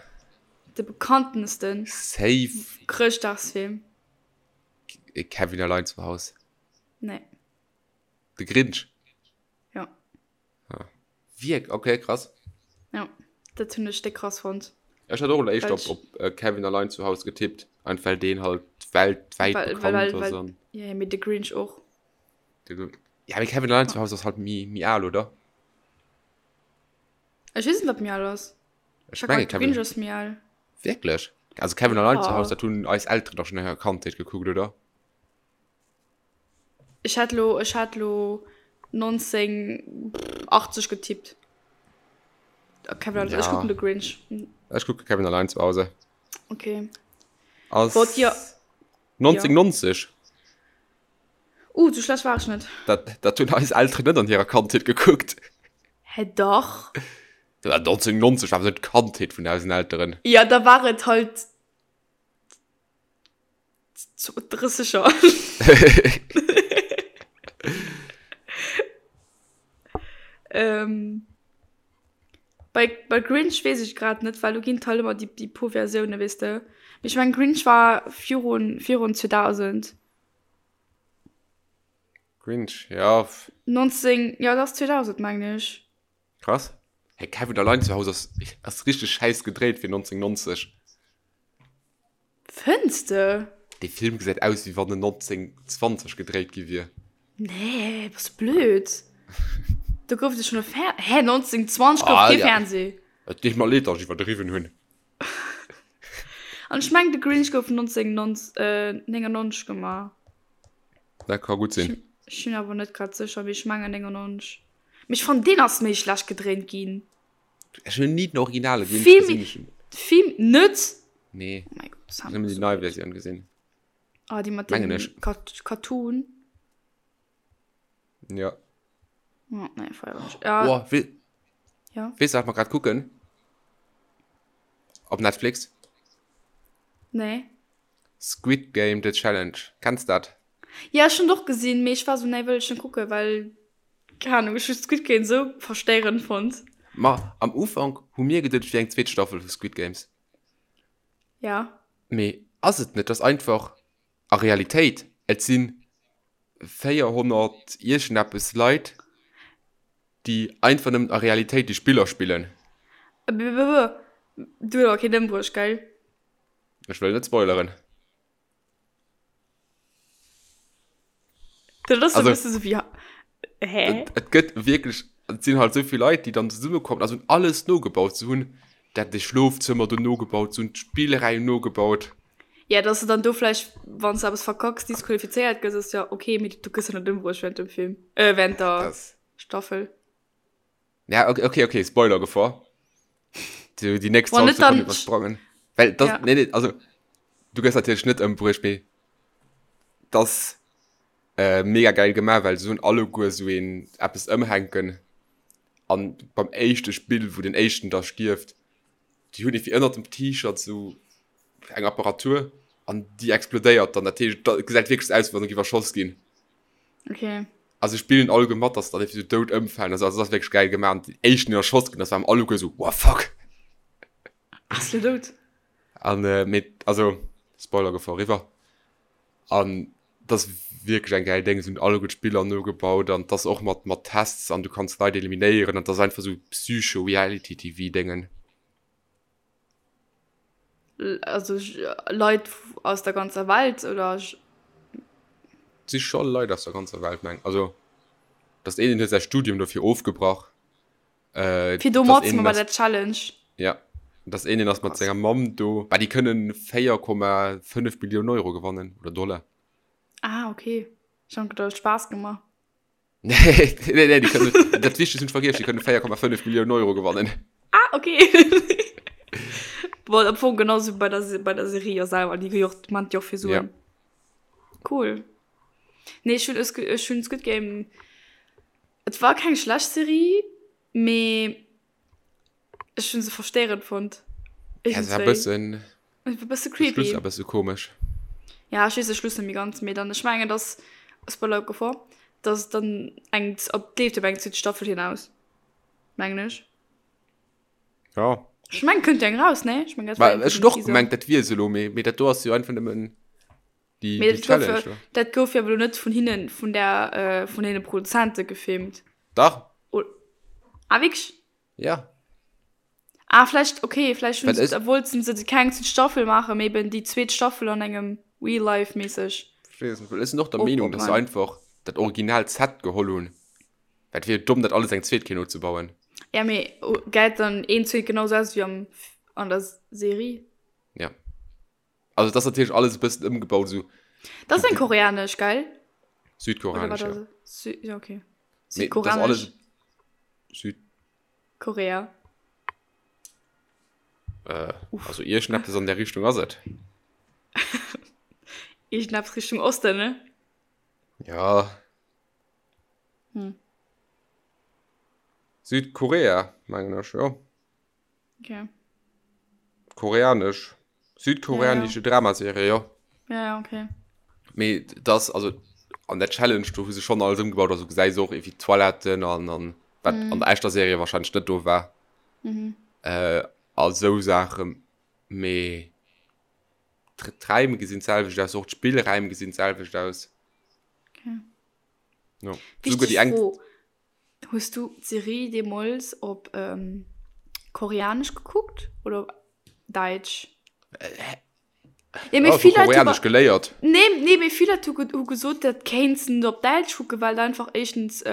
De bekanntesten. Safe. Chrëschtdagsfilm. Kevin allein zu Haus. Nee. De Grinch? Ja. Ah. Wierk? Okay, krass. Ja, dat hunn ech déck krass fonnt. Ech hat och elo éischter Well op, op äh, Kevin allein zu Hause getippt, einfach well deen halt weltwäit Well, bekannt well, well, ass well, an ja, mee de Grinch och. de, ja, mee Kevin allein zu Hause ass halt méi, méi al, oder? Ech weess net, wat méi al ass. Ech Ech menge de Grinch Kevin. ass méi al. Wierklech? Also Kevin allein zu Ja. Hause, dat hunn eis Elteren dach schonn an hirer Kandheet gekuckt, oder? Ech hätt lo, ech hätt lo 1980 getippt. Kevin allein, ech Ja. kucken de Grinch. Ech kucke Kevin allein zu Hause. Okay. Ass Wollt dir 1990. Uh, sou schlecht war ech net. Dat, dat hunn eis Elteren net an hirer Kandheet gekuckt. Hä, dach. Ja, 1990 war awer net d'Kandheet vun eisen Elteren. Ja, da war et halt 30er. ähm, bei, bei Grinch weess ech grad net, well do ginn et halt ëmmer déi, déi puer Versiounen, weess de. Mee ech mengen, Grinch war virun, virun 2000. Grinch, ja. 19, ja, dat ass 2000, mengen ech. Krass. Hey, Kevin allein zu Hause ass, ass richteg schäiss gedréit fir 1990. Fënns de? Dee Film gesäit aus wéi wann en 1920 gedréit gi wier. Nee, bass du blöd? Do gouf et jo schonn e Fer-, hä, 1920 gouf Ah, kee ja. Fernseh. Et deet mer leed, datt ech iwwerdriwwen hunn. An ech mengen, de Grinch gouf 1999 gemaach. Dat ka gutt sinn. Ech sinn awer net grad sécher, mee ech mengen 99. Mee ech fannen, deen ass méi schlecht gedréint ginn. Ech hunn ni den originale Grinch Vill gesinn. méi, Ech hunn- vill, net? Nee, Oh mein Gott, ech hunn nëmmen déi nei Versioun gesinn. Ah, déi mat Mengen dem ech. Kat Cartoon. Ja. Oh, nee, feier ech. Ja, Oh, we ja. weess du, wat mer grad kucken? Op Netflix? Nee. Squid Game, The Challenge. Kenns dat? Ja, ech hunn et och gesinn, mee ech war sou, nee, wëll ech net kucken, well, keng Ahnung, ech hu Squid Game sou verstéierend fonnt. Ma am Ufank hu mir geduet, et wier eng zweet Staffel vu Squid Games. Ja. Mee ass et net, et ass einfach a Realitéit, et si 400 iergendeppes Leit, déi einfach nëmmen a Realitéit déi Spiller spillen. Du huet awer keen ëmbruecht, gell? Ech wëll net spoileren. Dat ass e bësse sou wéi, hä? Et gëtt wierklech, et sinn halt esou vill Leit, déi dann zesummekommen a se hunn alles nogebaut. Se hunn dat de Schlofzëmmer do nogebaut, se hunn d'Spillräim nogebaut. Ja, dass de dann do vläicht, wann s de eppes verkacks, disqualifizéiert gëss, ass jo ok, mee du gëss jo net ëmbruecht während dem Film, äh, während der Staffel. Ja, okay, okay, okay, Spoiler-Gefor. Die, die nächst 20 Sekunden übersprangen. Weil das, ja. nee, nee, also, du gehst natürlich nicht ëmbruecht, mee das äh, mega geil gemacht, weil so alle Gur so een eppes ëmhänken. An beim éischte Spill, wou den éischten da stierft, déi hunn irgendwie ënnert dem T-Shirt so eng Apparatur an déi explodéiert dann. Dat heescht, dat gesäit wierklech aus, wéi wann se géif erschoss ginn. Okay. Also spillen alleguer mat, dass dann irgendwie so dout ëmfalen. Also, also das ass wierklech geil gemaach. An den éischten, deen erschoss ginn ass, waren alleguer so, what fuck. Ass lo dout? An, äh, mee, also, Spoiler-Gefor eriwwer. An das ass wierklech eng geil Déng. Se hunn alleguer d'Spiller nogebaut an das och mat, mat Tests an du kanns Leit eliminéieren an das ass einfach sou Psycho-Reality-TV-Déngen. Also Leit aus der ganzer Welt oder? Si scho Leit aus der ganzer Welt meng also dass een huet säi Studium dofir ofgebrach. Äh, Fir do matzema bei der Challenge. Ja dass een den ass mat senger Mamm do, bah déi kënnen 4,5 Millioune Euro gewannen oder Dollar. Ah okay, ech han geduecht Spaass gemaach. Nee, nee, nee, die können, dat Wichtigste hun ech vergiess, die kënnen 4,5 Millionen Euro gewannen. Ah, okay. Bon, am Fong genauso bei der, bei der Serie ja selber, die jo, man jo fir Suen. Ja. Cool. Nee, ich hun, ich hun Squid Game, et war keng schlecht Serie, mee Ech hun se verstérend fonnt. Ja, se war bëssen. E bësse creepy. De Schluss war bësse komesch. Ja, ech weess de Schluss net méi ganz, mee dann, ech mengen, dass, Spoiler Gefor, dass et dann eng, op, et leeft op eng zweet Staffel hinaus, mengen ech. Ja. Ech mengen, kënnt jo eng raus, nee? Ech mengen, dat war eng. Ech hunn och gemengt, dat wier se elo, mee, mee dat do ass jo einfach nëmmen déi, déi Challenge do. Dat gouf jo awer elo net vun hinnen, vun der, vun deene Produzente gefilmt. Dach. Ah, wierklech? Ja. Ah, vläicht, okay, vläicht hunn se, wollten se keng zweet Staffel maachen, mee eben déi zweet Staffel an engem Real Life mässeg. Ech weess net, well ech sinn och der Meenung, dass se einfach dat original Set geholl hunn, well et wier jo domm, dat alles eng zweet Kéier nozebauen. Ja, mee gesäit dann een zweet genau sou aus wéi am, an der Serie? Ja. Also et ass natierlech alles e bëssen ëmgebaut, esou. Dat ass eng koreanesch, gell? Südkoreanesch, ja. Sü ja, okay. Südkoreanesch. Alles Süd. Korea. Äh, also iergendeppes an der Richtung ass et. Iergendeppes Richtung Osten, ne? Ja. Hm. Südkorea, mengen ech, jo. Okay. Koreanesch. Südkoreanische ja, ja. Dramaserie, ja. Ja, ja, okay. Mee das, also an der Challenge, do hu se schon alles ëmgebaut, also gesäis och ewéi Toiletten an, an wat mm. an der echter Serie wahrscheinlich net do war. Mhm. Äh, a sou Saachen. Mee d'Räim gesinn d'selwecht aus, och d'Spillräim gesinn d'selwecht aus. Okay. Ja. Wichtig déi eng Fro. Hues du d'Serie deemols op Koreanesch gekuckt oder op Däitsch? Ja, mee vill Leit Koreanesch geléiert. Nee, nee, mee vill Leit hu gesot, dat kéints de net op Däitsch kucken, well et einfach éischtens,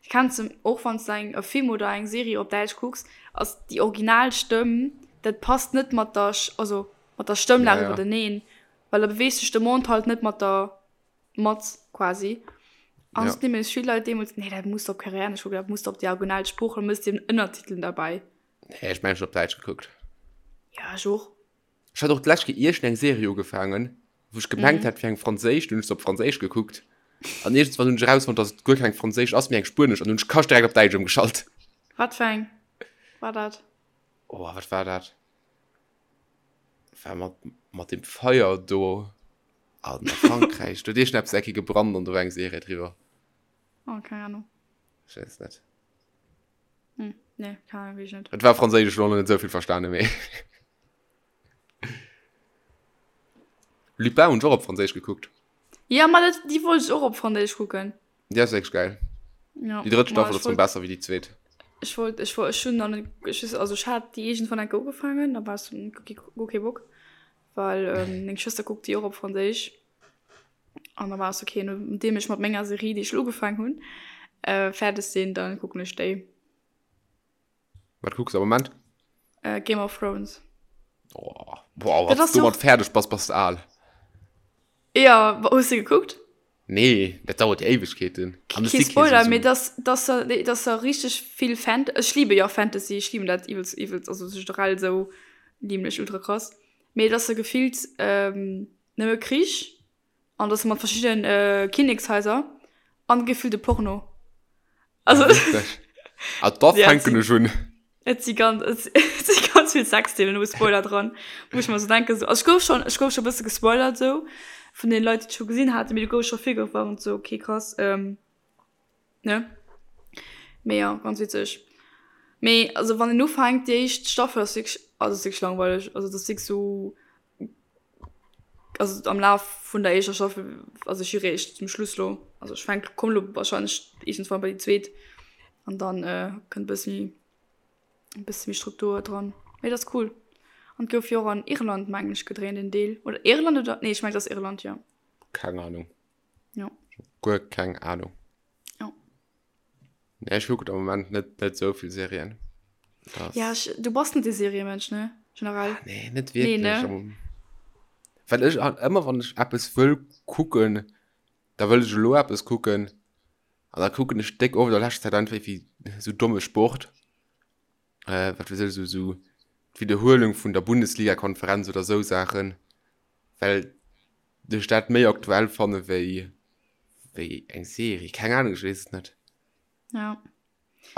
kenns de, och wann s de eng e Film oder eng Serie op Däitsch kucks, ass déi original Stëmm, dat passt net mat der, also mat der Stëmmlag iwwerteneen, well da beweegt sech de Mond halt net mat der mat quasi. An ja. nämlech vill Leit deemools, nee, dat muss op Koreanesch kucken, dat muss op déi original Sprooch, da mëss den Ënnertiteln derbäi. Nee, ech mengen, ech op Däitsch gekuckt. Ja, ech och. Ech hat och d'lescht Kéier iergend eng Serie ugefaangen, wou ech gemengt mhm. hat, fir eng franséisch, dunn hunn ech se op franséisch gekuckt. An iergendswann hunn ech erausfonnt, dass et guer keng franséisch ass, mee eng spuenesch, an hunn ech kascht direkt op Däitsch ëmgeschalt. Wat fir eng war dat? Oh, wat war dat? War mat, mat dem Feier do. An a Frankräich, do huet iergendeppes eng Kéier gebrannt an do war eng Serie driwwer. Oh, keng Ahnung. Ech weess et net. Hm. Nee, keine Ahnung, weess ech net. Et war franséisch, ech hunn och net esou vill verstanen, mee. Lupin hunn ech och op franséisch gekuckt. Ja, ma dat, déi wollt ech och op franséisch kucken. Déi ass wierklech geil. Ja, Déi drëtt ma Staffel ech ass rëm wollt, besser wéi déi zweet. ech wollt, ech wollt, ech hunn nach net, ech weess, also ech hat déi iergendwann eng Kéier ugefaangen, da war ech sou, okay, guer kee Bock, well meng Schwëster kuckt déi och op franséisch. An da war ech sou, okay, nodeem ech mat menger Serie, déi ech elo ugefaangen hunn, fäerdeg sinn, da kucken ech déi. Wat kucks du am Moment? Äh, Game of Thrones. Oh, boah, wann du domat fäerdeg bass, bass du al. Ja, hues du gekuckt? Nee, dat dauert jo Éiwegkeeten. Kee Spoiler, mee dass, dass da, dass da richteg vill Fant-, ech liebe jo Fantasy, ech lieben dat iwwelst, iwwelst, also generell esou lieben ech ultra krass, mee dass da gefillt ähm, nëmme Krich An das mat verschiddenen äh, Kinnekshaiser an gefillt e Porno. Also ah, da fänken ech un. Et si ganz, et si ganz vill Sexszenen, no Spoiler dran, wou ech mer so denken, so, also ech gouf schon, ech gouf schon e bësse gespoilert sou vun den Leit, déi et scho gesinn haten, mee du gouf scho virgewarnt sou, okay krass, ähm, ne? Mee ja, ganz witzeg. Mee also wann een ufänkt, déi éischt Staffel ass wierklech, also ass wierklech langweileg, also dat ass wierklech sou Also am Laf vun der éischter Staffel, also ech si réischt zum Schluss lo, also ech fänk, komm lo wahrscheinlech iergendswann bei déi zweet an dann äh, kënnt e bësse méi, e bësse méi Struktur dran. Mee dat ass cool. An et gouf jo och an Irland mengen ech gedréint en Deel, oder Irland oder, nee ech mengen et ass Irland, jo. Keng Ahnung. Jo. Guer keng Ahnung. Jo. Nee, ech kucken am Moment net, net sou vill Serien. Das... Ja, ech, du bass net de Seriemensch, ne? Generell. Ah, nee, net wierklech. Nee, ne? Well ech halt ëmmer, wann ech eppes wëll kucken, da wëll ech elo eppes kucken. An da kucken ech déck oft a leschter Zäit einfach wéi sou domme Sport. Äh, wat weess ech, sou, sou d'Wiederhuelung vun der Bundesliga-Konferenz oder sou Saachen. Well ech dat méi aktuell fanne wéi wéi eng Serie. Keng Ahnung, ech weess et net. Ja.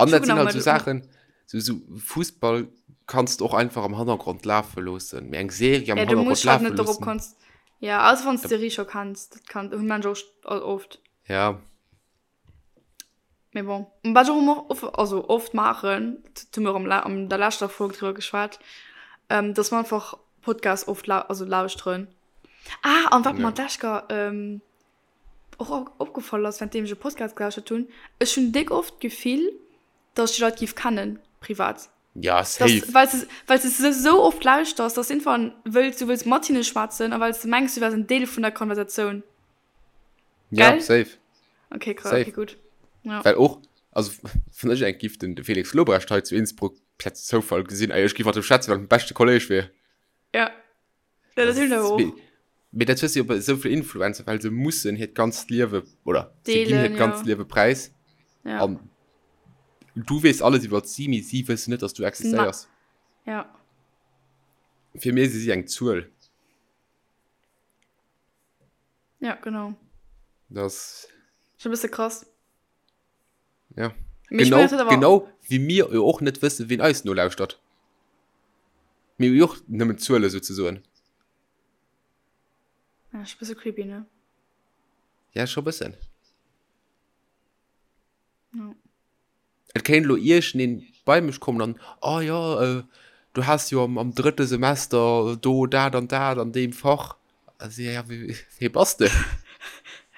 An dat sinn halt sou Saachen, sou, sou Fussball kanns de och einfach am Hannergrond lafe loossen, mee eng Serie am ja, du Hannergrond musst halt lafe net dorop loossen. konz ja also wann du d'Serie scho kenns, dat kann hunn Mensch och oft. Ja. Mee bon, wat ech och ëmmer of, also oft maachen, dat hu mir och am, an der leschter Folg driwwer geschwat, ähm, dass mer einfach Podcasts oft lau, also lauschteren. Ah, an wat mer d'lescht Kéier ähm, och opgefall ass, während deem ech e Podcast gelauschtert hunn, ech hunn déck oft d'Gefill, dass ech déi Leit géif kennen, privat. Ja, safe. Dass, well s de, well s de se esou oft lauschters, dass irgendwann wëlls, du wëlls mat hinne schwätzen a well s de mengs, du wäers en Deel vun der Konversatioun. Ja, Gell? safe. Okay, krass, okay, gutt. Ja. Well och, also wann ech eng giff den de Felix Lobrecht hei zu Innsbruck per Zoufall gesinn, ey, ech giff mat em schwätzen, well en beschte Kolleg wier. Ja. Ja, dat hunn ech awer och. Mee dat hues du jo bei esou vill Influencer, well se mussen hiert ganzt Liewe, oder se ginn hiert ganzt Liewe präis. Ja. An du weess alles iwwer si, mee si wëssen net, dass du existéiers. Ja. Fir mir si si eng Zuel. Ja, genau. Das. Schon e bësse krass. Ja. Mee genau, mein, genau wéi mir jo och net wëssen, wien eis nolauschtert. Mir hu jo och nëmmen Zuele souzesoen. Ja, ist e bësse creepy, ne? Ja, scho bëssen. Ja. Et kéint elo iergendeen bei mech kommen an, Oh jo, du has jo am drëtte Semester do dat an dat an deem Fach. Also, ja, wee bass de?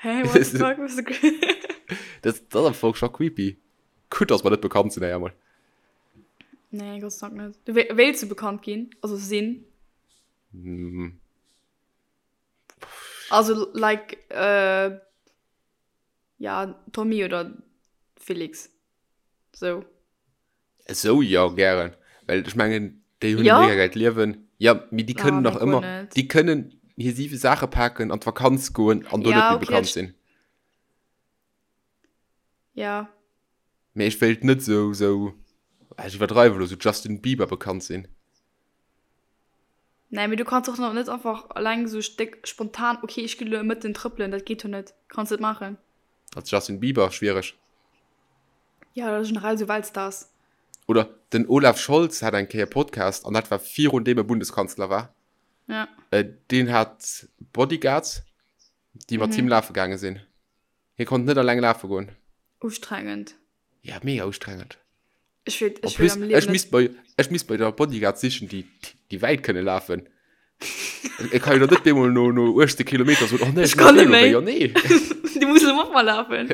Hä, what the fuck, was Dat ass am Fong scho creepy. Gutt, dass mer net bekannt sinn, éier emol. Nee, Gott sei Dank net. Du wéilts du bekannt ginn, also sinn? Also, like, Ja, Tommy oder Felix. Sou. Esou, jo, gären. Well ech mengen, déi hunn e mega gäilt Liewen. Jo, mee déi kënnen nach ëmmer, déi kënnen hir siwe Saache paken, an d'Vakanz goen an do net méi bekannt sinn. Ja. Mee ech wéilt net esou, esou, ech iwwerdreiwe elo, esou Justin Bieber bekannt sinn. Nee, mee du kanns och net einfach alleng sou déck spontan, okay, ech ginn elo e Mëtten trëppelen, dat geet jo net. Kanns net maachen. Als Justin Bieber, schwiereg. Ja, oder generell sou Weltstars. Oder den Olaf Scholz hat eng Kéier Podcast, an dat war virun deem e Bundeskanzler war. Ja. Deen hat Bodyguards, déi mat him lafe gaange sinn. Hie konnt net alleng lafe goen. Ustrengend. Ja, mega ustrengend. Ech wéilt, En ech wéilt plus, am Liewen ech net. misst mer, ech misst mer jo da Bodyguards sichen, déi, déi wäit kënne lafen. Ech kann jo da net bemol no, no 18 Kilometer soen, oh nee, Ech ech kann muss net méi. méi. Jo, nee. Du muss elo mat mer lafen.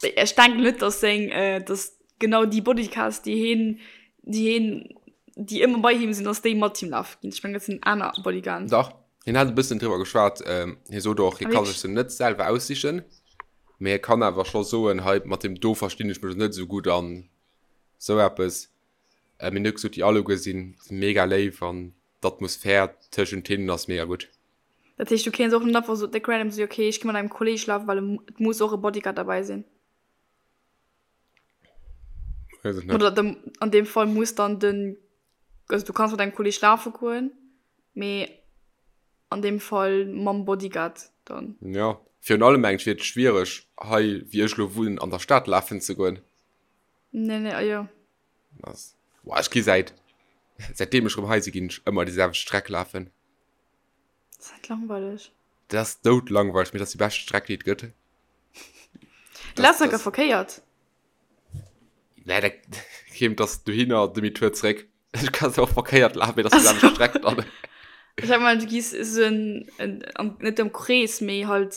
Ech denken net, dass seng, äh, dass genau déi Bodyguards, déi heen, déi heen, déi ëmmer bei him sinn, dass déi mat him lafe ginn. Ech mengen, dat sinn aner Bodyguarden. Dach, hien hat e bëssen driwwer geschwat. Ähm, hie sot och, hie Ah, ka wierklech? sech se net selwer aussichen, mee hie kann awer scho soen, hei mat deem do verstinn ech mech net esou gutt an esou eppes. Äh, mee hien huet gesot, déi alleguer sinn mega léif an d'Atmosphär tëschent hinnen ass mega gutt. Dat heescht, du kéints och net einfach sou déck random soen, okay, ech gi mat engem Kolleg lafen, well et muss och e Bodyguard derbäi sinn. Weess ech net. Oder dem, an deem Fall muss dann den, also du kanns mat engem Kolleg lafe goen, mee an deem Fall mam Bodyguard dann. Jo, virun allem mengen ech wier et schwiereg hei wéi ech elo wunnen an der Stad lafen ze goen. Nee, nee, jo. Ass, boah, ech gi säit, säitdeem ech erëm hei si ginn ech ëmmer déi selwecht Streck lafen. Dat ass net langweileg. Dat ass doudlangweileg, mee dat ass déi bescht Streck, déi et gëtt. Du lafs enker verkéiert. Nee, dat kéim, dass dohinner, Demi-tour zréck. Ech kann se och verkéiert lafen, mee dat ass déi selwecht Streck dann. Ech hat gemengt, du gees esou en, en, am, net am Krees, mee halt,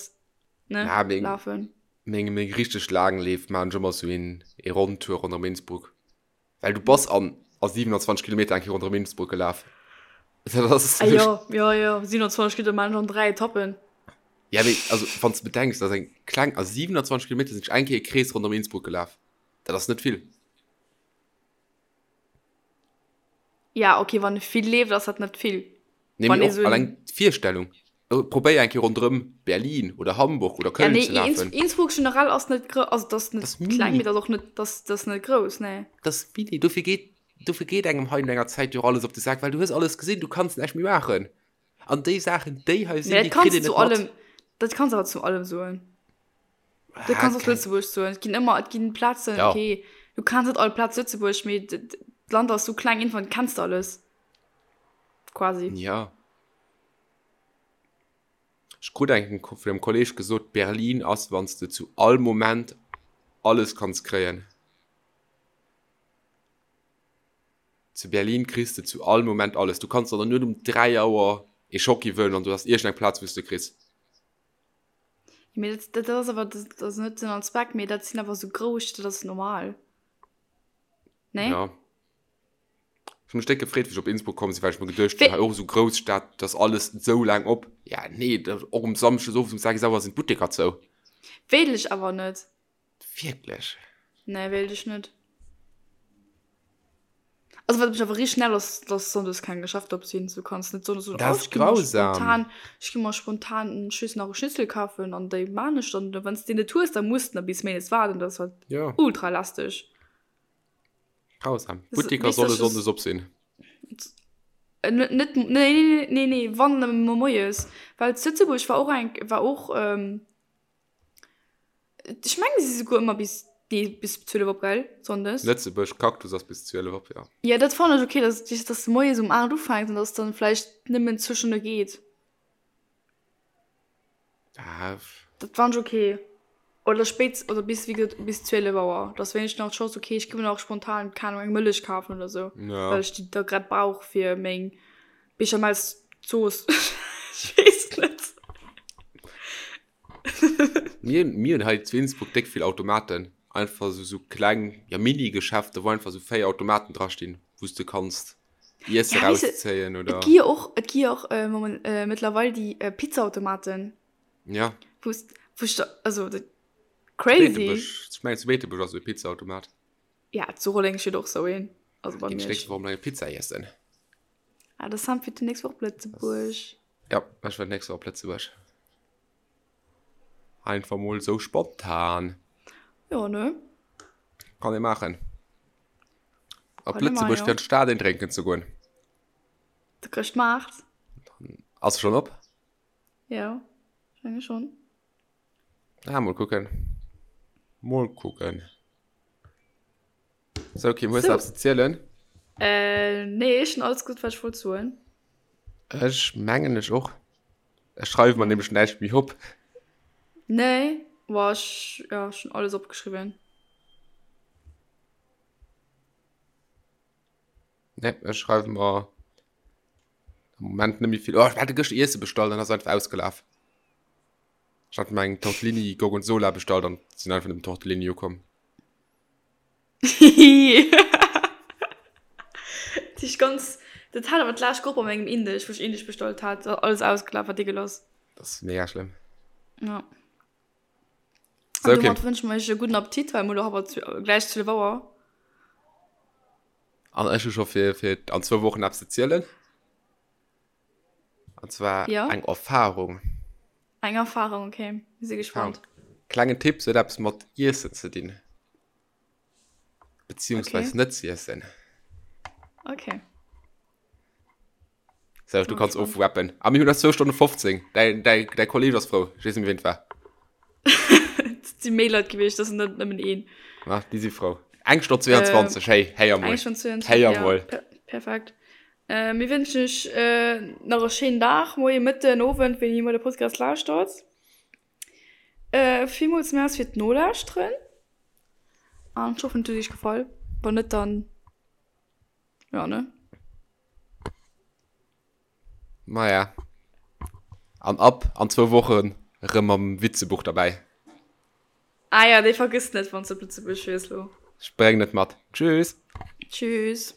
ne, Ja, meng, lafen. meng, meng richteg laang Leef maachen ech ëmmer esou een, ee Ronntour ronderëm Innsbruck. Well du bass an a 27 Kilometer eng Kéier ronderëm Innsbruck gelaf. Dat ass Ah jo, jo, jo, 27 Kilometer maachen ech an 3 Etappen. Ja, mee also wann s de bedenks, dat ass eng kleng, a 27 Kilometer sinn ech eng Kéier e Krees ronderëm Innsbruck gelaf. Dat ass net vill. Ja, okay, wann e vill leeft, ass dat net vill. Nee, Wann mee ee och sou alleng d'Virstellung. Probéier eng Kéier ronderëm Berlin oder Hamburg oder Ja, Köln nee, ze lafen. Innsbruck generell ass net grouss, also dat ass net Dat ass kleng, mini. mee dat ass och net, dat ass net grouss, nee. Dat ass mini. Dofir geet, dofir geet engem hei no enger Zäit jo och alles op de Sak, well du hues alles gesinn, du kanns näischt méi maachen. An déi Saachen, déi hei sinn, Mee déi dat kritt kanns een du zu net mat. allem, dat kanns awer zu allem soen. Dat Ah, kanns och keng. Lëtzebuerg soen. Et ginn ëmmer, et ginn Plazen, Ja. okay, du kanns net all Plaz Lëtzebuerg, mee d'Land ass sou kleng, iergendwann kenns de alles. Quasi. Ja. Ech krut eng vun engem Kolleg gesot, Berlin ass, wann s de zu all Moment alles kanns kréien. Zu Berlin kriss de zu all Moment alles. Du kanns der dann net um 3 Auer ee Schocki wëllen an du hast iergendeng Plaz, wou s de kriss. Mee dat, dat ass awer, dat ass net Sënn an Zweck, mee dat sinn awer sou grouss, dat ass normal. Nee? Ja. Ech hu mech déck gefreet, wéi ech op Innsbruck komm sinn, well ech mer geduecht hunn, hei och esou grouss Stad, dat ass alles esou laang op. Ja, nee, dat och um Samschdes owes um 6 Auer sinn d'Butteker zou. Wéilt ech awer net. Wierklech? Nee, wéilt ech net. Also wat mech awer richteg nervt ass, dass sonndes keng Geschäfter op sinn. Du kanns net sonndes soen, Dat oh ass ech gi mer grausam. spontan, ech gi mer spontan ech weess nach e Schnitzel kafen an déi maan ech dann. Wann s de deen net hues, da muss de nach bis méindes waarden. Dat ass halt Ja. ultra lästeg. Grausam. Das, Butteker weess, solle dass sonndes op sinn. Äh, net, net, nee, nee, nee, nee, wann nëmme moies. Well zu Lëtzebuerg war och eng, war och, ähm, Ech mengen, si si souguer ëmmer bis, nee, bis 12 op, gell? Sonndes. Lëtzebuerg Cactus ass bis 12 op, jo. Jo, dat fannen ech ok, dass, dass de moies um 8 ufänks an dass dann vläicht nëmmen zwou Stonne geet. Ah. Dat fannen ech ok. Oder spéit, oder bis, wéi gesot, bis 12 Auer. Dass wéinstens nach d'Chance, ok, ech gi mer nach spontan, keng Ahnung, eng Mëllech kafen oder sou, Ja. well ech déi da grad brauch fir meng Bechamelszooss. Ech weess net. Mir, mir hunn hei zu Innsbruck déck vill Automaten. Einfach esou, esou kleng, ja Mini-Geschäfte, wou einfach esou 4 Automaten drastinn, wou s de kanns Iesse Ja, weess de, rauszéien et oder. gi jo och, et gi jo och äh, moment, äh, mëttlerweil déi äh, Pizzaautomaten, Ja. wou s, wou ech da, also dat, Zu crazy. Beetebuerg, ech mengen zu Beetebuerg ass esou e Pizzaautomat. Ja, zu Rolleng steet och esou een, also bei Ginn ech Miersch. nächst Woch emol eng Pizza iessen. Ah, de Sam fiert déi nächst Woch op Lëtzebuerg. Ja, ech war d'nächst Woch op Lëtzebuerg. Einfach mol sou spontan. Jo, ne? Kann ee maachen. Op Kann ee maachen, Lëtzebuerg jo. fir an d'Stad een drénken ze goen. De Chrëschtmaart. Ass e schonn op? Jo, ech menge schonn. Ah, mol kucken. Mol kucken. Sou Kim, hues de Sou. eppes ze zielen? Äh, nee, ech hunn alles gesot, wat ech wollt soen. Ech mengen ech och. Ech schreiwe mer nämlech näischt méi op. Nee, boah, ech, ja, ech hunn alles opgeschriwwen. Nee, ech schreiwe mer am Moment net méi vill. Oh, ech hat gëschter Iesse bestallt an ass einfach ausgelaf. Ech hat mer eng Tortellini Gorgonzola bestallt an sinn einfach nëmmen Tortellini ukomm. Dat ist ganz, dat hat awer d'lescht Grupp a mengem Indesch, wou ech Indesch bestallt hat, alles ausgelaf, war degueulass. Dat ass mega schlëmm. Ja. An okay. domat wënsche mer iech e gudden Appetit, well mir elo awer gläich 12 Auer. An ech hu scho fir, fir an zwou Wochen eppes ze zielen. An zwar ja? eng Erfahrung. Eng Erfahrung, okay. Mir si gespannt. Klengen Tipp, se huet eppes mat Iessen ze dinn. Beziehungsweise okay. net ze iessen. Okay. So, du kannst ofrappen. A mir hunn eis 2 Stonne 15. Däi, däi, däi Kolleg ass frou. Ech weess net méi, wien et war. Et si méi Leit gewiescht, dat ass net nëmmen een. Ma, déi si frou. Eng Stonn 22, hey, héier mol. Eng Stonn 22, Héier ja. mol. Per perfekt. Äh, mir wënschen iech äh, nach e schéinen Dag, Moien, Mëtten, Owend, wéini Dir de Podcast lauschtert. Äh, villmools Merci fir d'Nolauschteren. An ech hoffen, et huet iech gefall. Wann net, dann, ja, ne? Maja. An ab an zwou Wochen erëm mam Witzebuch derbäi. Ah ja, dee vergëss net, wann s de op Lëtzebuerg fiers lo. Ech bréngen et mat. Tschüss! Tschüss!